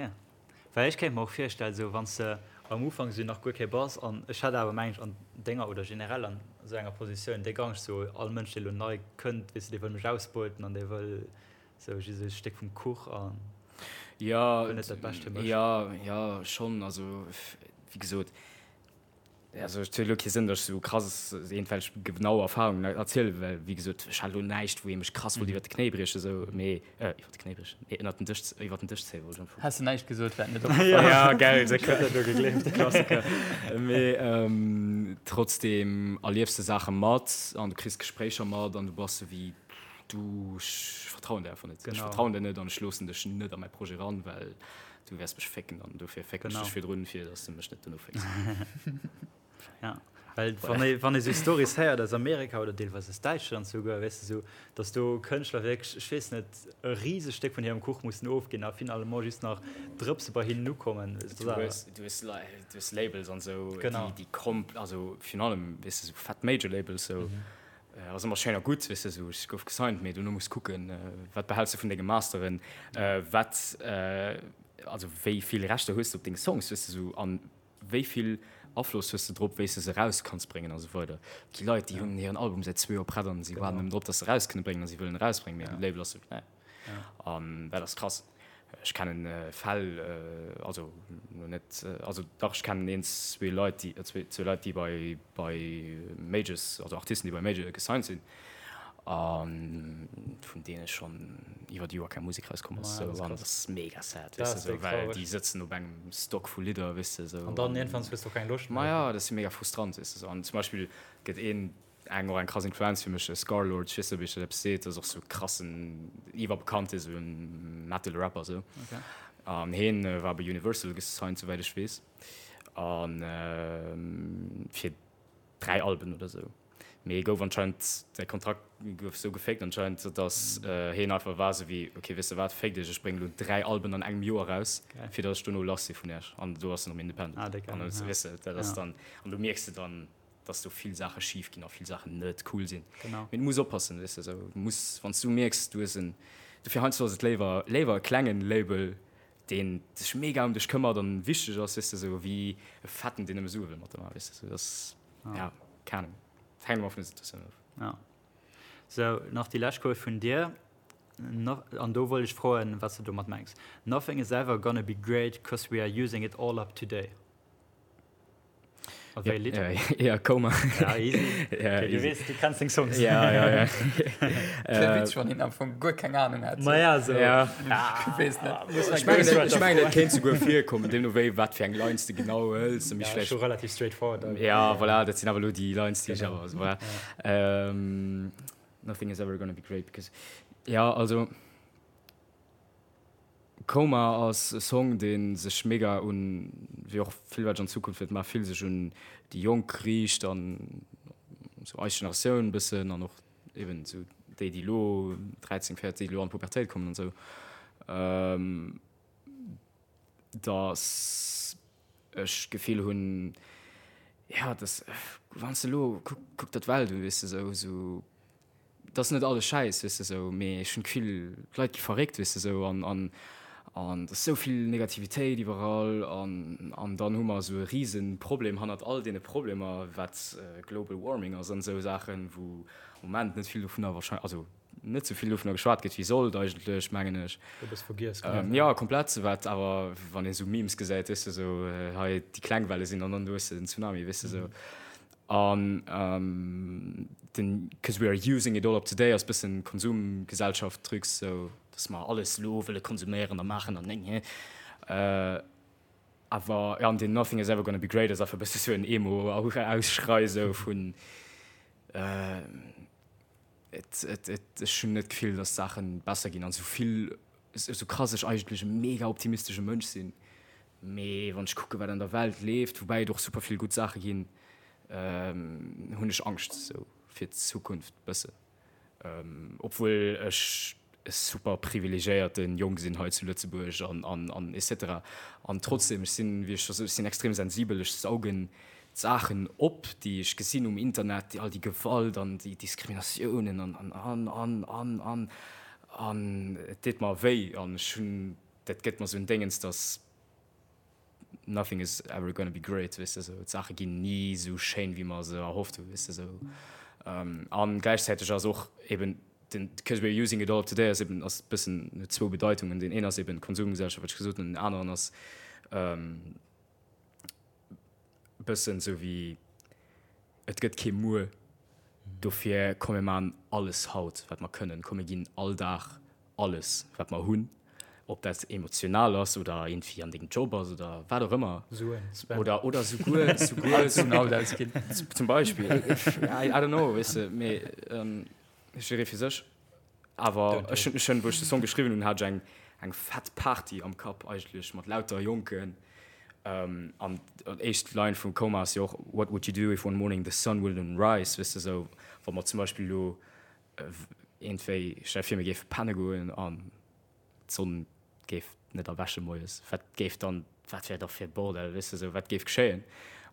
Well ech kéint mer och virstellen esou wann s de am Ufank esou nach guer kee bass an ech hätt awer mengen ech an denger oder generell an esou enger Positioun déck Angscht esou all Mënsch dee lo nei kënnt weess de dee wëll mech ausbeuten an dee wëll Sou just e Stéck vum Kuch an Ja, wëll net dat Bescht fir mech. ja, ja, schonn. Also, wéi gesot, also et huet elo kee Sënn, datt ech sou krass iergendwelch genau Erfarungen erzielen, well wéi gesot, ech hat elo näischt, wou ee mech krass wollt iwwer de Knéi briechen, sou, mee, iwwer de Knéi briechen, nee, ënnert den Dësch, iwwer den Dësch zéien, wollt ech am Fong. Häss de näischt gesot, wär et net opgefall. Ja, gell, esou Klassiker. Mee trotzdem erliefs de Saache mat an du kriss Gespréicher mat an du bass sou wéi, Du, ech vertrauen der einfach net. Ech vertrauen der net an ech loossen dech net a mäi Projet ran, well du wäers mech fécken an dofir fécken ech dech virdrun, fir dass de mech net dono fécks. Ja. Well wann ee, wann ee sou Stories héiert aus Amerika oder deelweis aus Däitschland souguer, weess de, sou, datt do Kënschtler wierklech, ech weess net, e risegt Stéck vun hirem Kuch mussen ofginn a finalement just nach Drëpse bei hinnen ukommen. Du hues, du hues, du hues Labels an sou, déi, déi komp-, also virun allem, weess de, sou fett Major Labels sou, ass ëmmer schéin a gutt, weess de, sou ech gouf gesigned, mee dono muss kucken, wat behäls de vun denge Masteren, wat, also wéi vill Rechter hues de op deng Songs, weess de, sou an wéi vill Afloss hues de drop, wéi s de se eraus kanns bréngen a sou weider. Et gi Leit, déi hunn hiren Album säit zwee Joer prett an si waarden nëmmen drop, datt se eraus kënne bréngen a si wëllen erausbréngen, mee de Label ass sou, nee. An dat ass krass. Ech kennen Fäll, also lo net, also dach ech kennen een, zwee Leit, déi, zwee, zwee Leit, déi bei, bei Majors, also Artisten, déi bei Major gesigned sinn a vun deene schonn iwwer Joer keng Musek rauskomm ass. Sou, an dat ass mega sad, weess de, sou, well déi sëtzen op engem Stock vu Lidder, weess de, sou. An dann iergendwann hues de och keng Loscht méi. Ma ja, dat ass mega frustrant, weess de, sou. An zum Beispill gëtt een, eng och eng krass Influenz fir mech, Scarlxrd, ech weess net ob iech dat eppes seet, dat ass och sou krassen, iwwerbekannte sou Metal Rapper sou. An heen war bei Universal gesigned souwäit ech weess an fir 3 Alben oder sou. Mee e gouf anscheinend, säi Kontrakt gouf sou gefaked anscheinend, datt heen einfach war sou wéi, ok weess de wat, féck dech, ech bréngen elo 3 Alben an engem Joer raus, fir datt ech dono lass si vun iech. An do ass en erëm independent. An weess de, dat ass dann, an do mierks de dann, dass do vill Saache schif ginn a vill Saachen net cool sinn. Genau. Mee du muss oppassen, weess de, sou, du muss, wann s du mierks, du hues en, dofir heiansdo ass et léiwer, léiwer e klengen Label, deen sech mega ëm dech këmmert an wichteg ass, weess de, sou, wéi e fetten, deen nëmme Sue wëll mat der maachen, weess de, sou, dat ass, ja, keng Ahnung, et hänkt ëmmer vun der Situatioun of. Ja. Sou, nach déi lescht Quote vun dir, an do wollt ech froen, wat s de domat mengs, Nothing is ever gonna be great, cause we are using it all up today. A wéi Lidd? Ja, Coma. Ja, easy. Ja, okay, du weess, du kenns deng Songs. Ja, ja, ja. Wär witzeg, wann een am Fong guer keng Ahnung hätt. Ma ja, so. Ja. Ich weess net. Ech mengen, ech mengen, et kéint souguer virkommen, deemno wéi wat fir eng Lines de genau hëls. Ja, vläicht... scho relativ straightforward. Ja, voilà, dat sinn awer elo déi Lines, déi ech awer, also voilà. Ähm, nothing is ever gonna be great because, ja, also. Coma ass e Song dee sech mega un, wéi och vill wat ech an Zukunft wäert maachen, vill sech un déi Jonk riicht an sou eis Generatioun e bëssen an och eben sou déi déi elo 13, 14, déi elo an d'Pubertéit kommen an sou, dass ech d'Gefill hunn, jo dass wann s de elo, kuck kuck der d'Welt un, weess de, sou sou. Et ass net alles Schäiss, weess de sou, mee ech hunn d'Gefill, d'Leit gi verréckt, weess de sou, an an an et ass sou vill Negativitéit iwwerall an an dann hu mer esou e rise Problem hannert all deene Problemer, wat Global Warming ass an esou Saachen, wou am Moment net vill dovunner wahrscheinlech, also net sou vill dovunner geschwat gëtt wéi sollt eigentlech, mengen ech. E bësse vergiess gëtt. Jo, komplett, wat awer, wann ee sou Memes gesäit, weess de sou, hei déi kleng Welle sinn an dann do hues de den Tsunami, weess de sou. An den 'cause we are using it all up today' ass bëssen Konsumgesellschaft-Trucs, sou dass mer alles elo wëlle konsuméieren a maachen an néng. Awer jo, an den 'nothing is ever gonna be great' ass einfach e bësse sou en Emo-Ausschrei sou vun Et, et, et, ech hunn net d'Gefill, dass d'Saache besser ginn. An esou vill, esou krass ech eigentlech e mega optimistesche Mënsch sinn, mee wann ech kucke wat an der Welt leeft, woubäi et och super vill gutt Saache ginn, hunn ech Angscht esou fir d'Zukunft bëssen. Obwuel ech e super privilegiéierte Jong sinn hei zu Lëtzebuerg an, an, an et cetera. An trotzdem, ech sinn, wéi ech scho sot, ech sinn extrem sensibel, ech saugen d'Saachen op, déi ech gesinn um Internet, all déi Gewalt an déi Diskriminatiounen an, an, an, an, an, an, an et deet mer wéi an ech hunn, dat gëtt mer esou en Déngens, dass nothing is ever gonna be great, weess de, sou d'Saache ginn ni esou schéin, wéi mer se erhofft hunn, weess de, sou. An gläichzäiteg ass och eben den, because we're using it all up today ass eben, ass bëssen, huet zwou Bedeitungen, deen een ass eben d'Konsumgesellschaft, wat ech gesot hunn, an deen aneren ass bëssen esou wéi, et gëtt kee Muer, dofir komm mir maachen alles haut, wat mer kënnen, komm mir ginn all Dag alles wat mer hunn, ob dat emotional ass oder iergendwéi an dengem Job ass oder wat och ëmmer, Suen spenden. Oder, oder souguer, souguer, Alles vun haut ausginn. Zum Beispill, I, I don't know, weess de, mee jidderee fir sech. Awer ech hunn, ech hunn, wou ech de Song geschriwwen hunn, hat ech eng, eng fett Party am Kapp eigentlech mat lauter Jonken. An d'éischt Line vum Coma ass jo och What would you do if one morning the sun wouldn't rise? Weess de, esou wa mer zum Beispill elo iergendwéi, stell der vir mir géife penne goen an d'Sonn géif net erwäche moies, wat géif dann, wat wär da fir e Bordell, weess de, esou wat géif geschéien?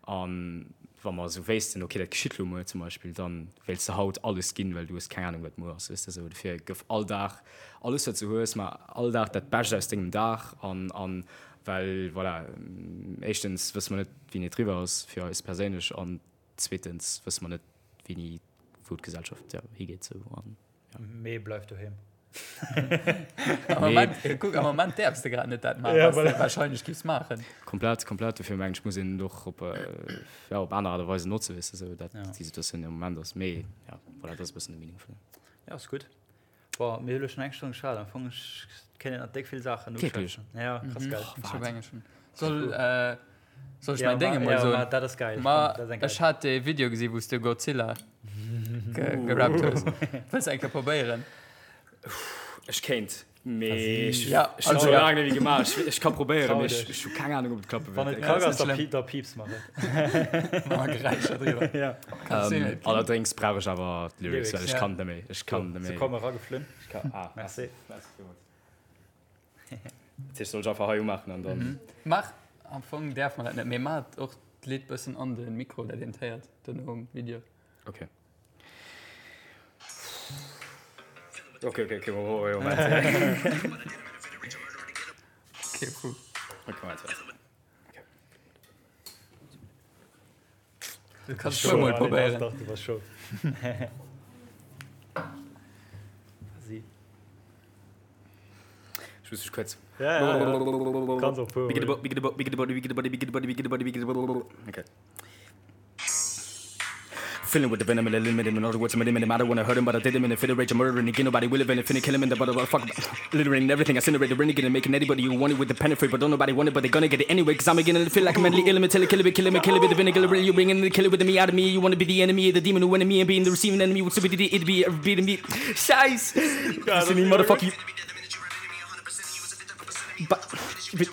An wa mer esou wéissten, okay dat geschitt elo muer zum Beispill, da wéilts de haut alles ginn, well du hues keng Anung wat muer ass, weess de, esou. Dofir gëff all Dag alles wat s du hues, mar all Dag dat Bescht aus dengem Dag an an Well, voilà, éischtens wësse mer net, wéini et eriwwer ass fir eis perséinlech an zweetens wësse mer net, wéini, wou d'Gesellschaft, jo, higeet sou an, jo. Mee bleif doheem. Am Moment, kuck, am Moment däerfs de grad net dat maachen, wat s de warscheinlech giffs maachen. Komplett, komplett. Dofir mengen ech, muss een et och op, jo, op aner Aart a Weisen notzen, weess de, sou dat déi Situatioun am Moment ass. Mee, jo, voilà, dat ass e bëssen de Meaning vun dem. Jo, ass gutt. Boah, mir hu lo schon eng Stonn geschwat. Am Fong ech kéint nach déck vill Saachen Wierklech? uschwätzen. Ja, krass geil. Mhm. Ech hab eng schon. Soll, äh, soll ech Ja, mäin Ding ma, emol ja, soen? ma dat ass geil. Ma Komm, dat ass eng geil. ech hat dee Video gesi wou s de Godzilla ge gerappt hues. Wëlls eng Kéier probéieren? Ech kéint. Mee ech Ja, ech hunn also scho ja. laang net méi gemaach. Ech ech ka probéieren, Trau mee ech dech. ech hu keng Ahnung, ob et klappe Wann wäert. et Ja, kack ass ass, net da schlimm. pie da pieps mer et. Mat Geräischer driwwer. Ja. Kannst du Ähm, net ginn. allerdéngs brauch ech awer d'Lyrics, Lyrics, well ech ja. kann net méi. Ech kann net Se méi. komme erageflunn. Ech kann, ah, Merci. merci villmools. Dat heescht, soll ech einfach hei umaachen an dann. Mach, am Fong däerf mer dat net, mee maach och d'Lidd bëssen an de Mikro, dat een d'héiert dono um Video. Okay. Okay, okay, okay, Moment, Moment. Okay, cool. Okay, Moment, warte. Du kannst schon mal probieren. Doch, du warst schon. Sie. Ich muss mich kurz. Ja, ja, ja. Kannst auch pur. Okay. Filling with the venom and the limit in other words, I'm a I don't wanna hurt him, but I did him in a fit of rage. I'm murdering again. Nobody will even finna kill him in the butter. Fuck, littering everything. I incinerate the renegade and making anybody who want it with the penetrate, but don't nobody want it, but they gonna get it anyway. Cause I'm beginning to feel like I'm mentally ill. I'm kill it, kill him, kill it with the vinegar. You bringing the killer with me out of me. You wanna be the enemy, the demon who enemy, and being the receiving enemy. What's stupidity? It'd be beating me. Scheiß! You me, motherfucker. You.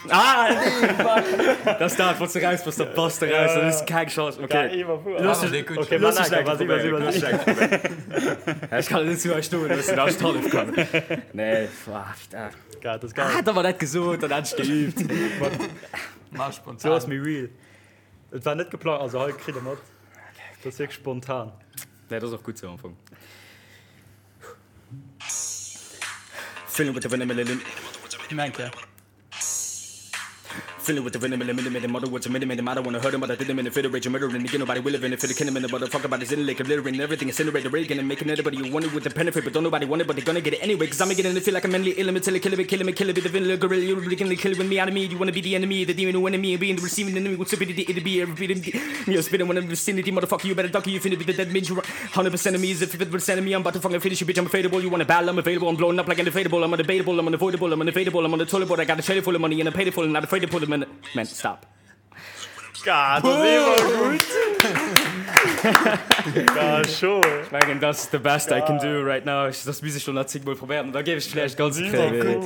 Ah, nee, fuck. Dat ass dat, wann s de raus bass, da bass de raus, dann hues de keng Chance. Okay. Looss dech, okay, looss dech eng Kéier probéieren. Looss dech eng Kéier probéieren. Ech kann et net zu hei stoen loossen, dass ech d'Hallef kann. Nee, ah, putain. Geil, dat ass geil. Ah, da war dat gesot, dann hat ech geübt. Mach spontan. Sou ass méi real. Et war net geplant, also hei kritt e mat. Dat ass wierklech spontan. Nee, dat ass och gutt sou am Fong. 100 percent of me is a 50 percent of me I'm about to fucking finish you bitch I'm unfadable You wanna battle I'm available I'm blowing up like an inflatable I'm undebatable I'm unavoidable I'm unevadable I'm on the toilet board I got a trailer full of money and I paid it full and not afraid to pull them in Man stop Gah, dat ass iwwer gutt! Gah, scho! Ech mengen dat ass the best I can do right now. Ech dat misst ech lo nach zéngmol probéieren an da géif ech vläicht ganz kréien.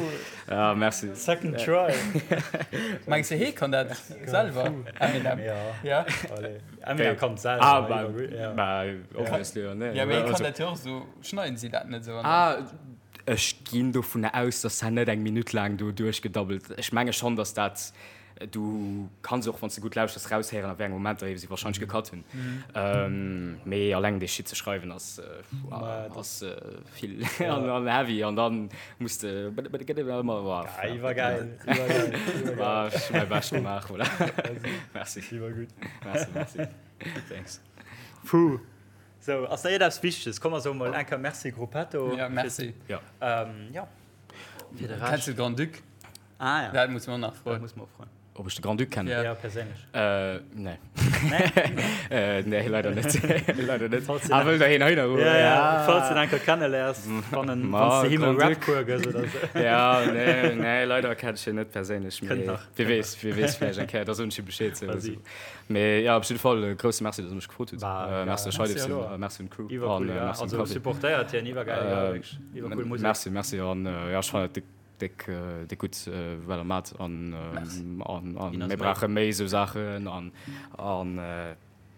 Ja, merci. Second try. Mengs de hee kann dat selwer Eminem? Ja. Ja. Allez. Eminem kann et selwer. Ah, bah, bah, obviously, ja, nee. Ja, mee hee kann dat jo och esou, schneiden si dat net esou an Ah, ech ginn dovunner aus, dass dat net eng Minutt laang do duerchgedabbelt. Ech menge schonn, dass dat Du kanns och, wann s de gutt lauschters, raushéieren, a wéi enge Momenter si warscheinlech gecut hunn. Mee alleng dee Shit ze schreiwen ass ass vill an heavy an dann muss de ëmmer. Iwwergäil, iwwergäil, iwwergäil. Ech hu mäi Bescht gemaach, voilà. Merci. Iwwergutt. Merci, merci. Thanks. Puh. Sou, ass nach iergendeppes Wichteges? Komm mer soe mol eng Kéier Merci Gruppetto. Ja, merci. Ja. Jo. Fir de Rescht. Kenns de Grand-Duc? Ah ja. Dat muss mer och nach froen. Dat muss mer och froen. Ob ech de Grand-Duc kennen? Ja, perséinlech. Äh, nee. Nee? Äh, nee, leider net. Leider net. Falls du Ah, wëll der heen hei nach Ja, ja. Falls du en eng Kéier kenneléiers, wann en, Ma, wann s de him e Grand-Duc. Rap-Cours gëss oder sou. Ja, nee, nee, leider kenn ech hien net perséinlech. Kënnt Mee nach, wie kënnt weess, wie weess, vläicht eng Kéier, da soen ech him Bescheed. Sou, Vas-y. sou. Mee ja, op jidde Fall e grousse Merci, dass der mech gefrot hutt. Bah, Äh, ja. merci, Merci, Scheidefsinn, hallo. äh, merci un d'Crew Iwwercool, an, äh, ja. merci un Also Café. supportéiert hien, iwwergäil, ja, Äh, wierklech. Iwwercool Musek. Merci, merci an, äh, ja, ech fannen dat de. Déck déck gutt wat der mat an an an mir brauche méi esou Saachen an an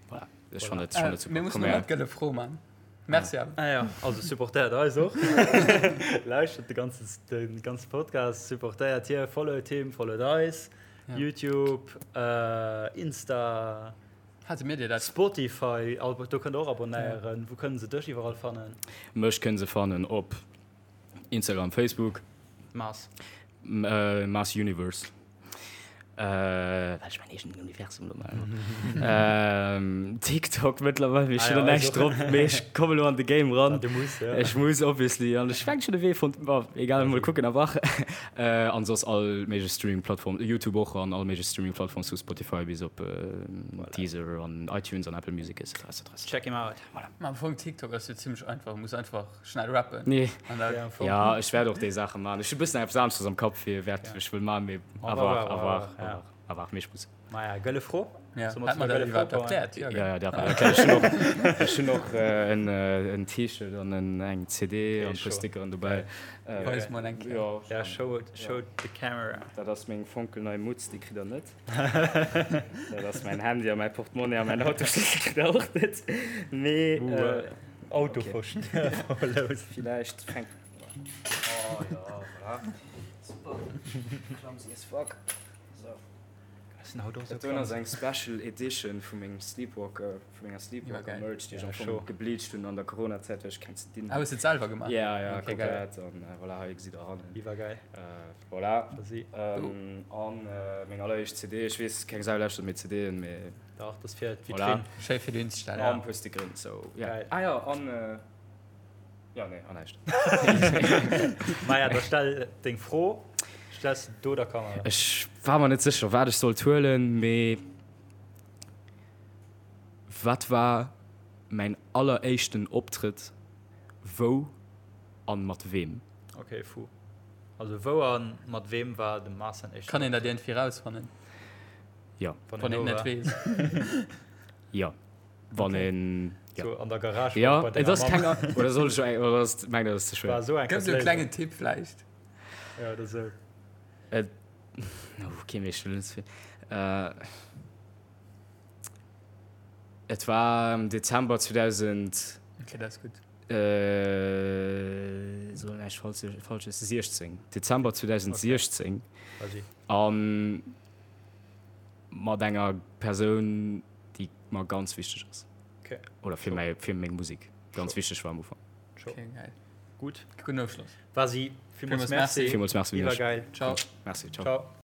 voilà ech fannen et fannen et super. Mir mussen elo nach d'gëlle Fro man. Merci awer. Ah ja, also supportéiert eis och. Lauschtert de ganze de ganze Podcast, supportéiert hie, followt him, followt eis, YouTube, Insta. Hate mir dir dat? Spotify, do kënnt der och abonéieren. Wou kënnen se dech iwwerall fannen? Mech kënne se fannen op Instagram, Facebook. Mars. Mars Universe. Well ech mäin eegenen Universum elo maachen. TikTok mëttlerweil, mee ech hunn do näischt drop, mee ech kommen elo an de Game ran. Du muss, ja. Ech muss obviously an ech fänk schonn e Wee fonnt, bon, egal, mol kucken awer. An soss all méiglech Streaming-Plattform, YouTube och an all méiglech Streaming-Plattforms vu Spotify bis op Deezer an iTunes an Apple Music etc. Etc. Check him out. Voilà. Ma am Fong TikTok ass jo zimmlech einfach, muss einfach schnell rappen. Nee. An da Ja, am Fong. Ja, ech wäert och déi Saache man. Ech hu bëssen eppes aneschters am Kapp fir wäert Ja. ech wëll man, mee On à va voir, voir, à on va voir, voir, à ja. voir, à voir, mee ech muss. Maja, gëlle Fro. Ja. Solle mer Hat zu mer der dat gëlle Fro iwwerhaapt kommen? erkläert? Ja, Ja, gell? ja, dat war erkläert. Ech hunn och, ech hunn och en, en T-Shirt an en, eng CD Okay, an e puer sure. Stickeren dobäi. Geil. Äh, Weis mol eng Kéier. ja, Ja, show, show the camera. Dat ass meng fonkelnei Mutz, déi kritt der net. Dat ass mäin Handy a mäi Portemonnaie a mäin Autoschlëssel kritt der och net. Mee Uh, äh, Auto okay. verlos. Villäicht fänkt. Oh ja, voilà. Super. Clumsy as fuck. So. Dat doen ass eng Special Edition vu mengem Sleepwalker, vu menger Sleepwalker Merch, déi ech am Fong gebleached hunn an der Corona-Zäit, well ech keng ze dinn Ah, hues de et selwer gemaach? Ja, ja, Okay, geil. komplett. An voilà, hei gesitt der hannen. Iwwergeil. Voilà. Vas-y. An meng alleréischt CD, ech weess, keng Sau lauschtert méi CDen, mee. Dach, dat ass fir d'Vitrinn. Voilà. Schéi fir dohin ze stellen. An e puer Stickeren, sou, ja. Geil. Ah jo, an, jo, nee, an näischt. Maja, da stell deng Fro. Stells de do der Kamera. Ech war mer net sécher, wat ech sollt huelen, mee wat war mäin alleréischten Optrëtt, wou an mat weem? Ok, fu. Also wou an mat weem war dem Mars säin éischten Kann een dat Optrëtt? iergendwéi rausfannen? Jo. Wann een net weess. Jo. Wann een, jo. So an der Garage Jo, bei et denger ass Mamm. keng, oder soll ech eng, oder ass, mengt der, dat ass ze schwéier? War esou eng Gëff sou e klengen Tipp vläicht. Ja, oder sou. Et, ok, mee ech wëll net ze vill. Et war am Dezember 2000. Ok, dat ass gutt. Soll näischt Falsches, 16, Dezember 2016. Okay. A mat enger Persoun, déi mer ganz wichteg ass. Okay. Oder fir mäi, fir meng Musek ganz wichteg war am Ufank. Okay, geil. Gutt. Gudden Ofschloss. Vasi, villmools Merci. Villmools Merci un iech. Iwwergeil. Ciao. Merci, ciao. Ciao.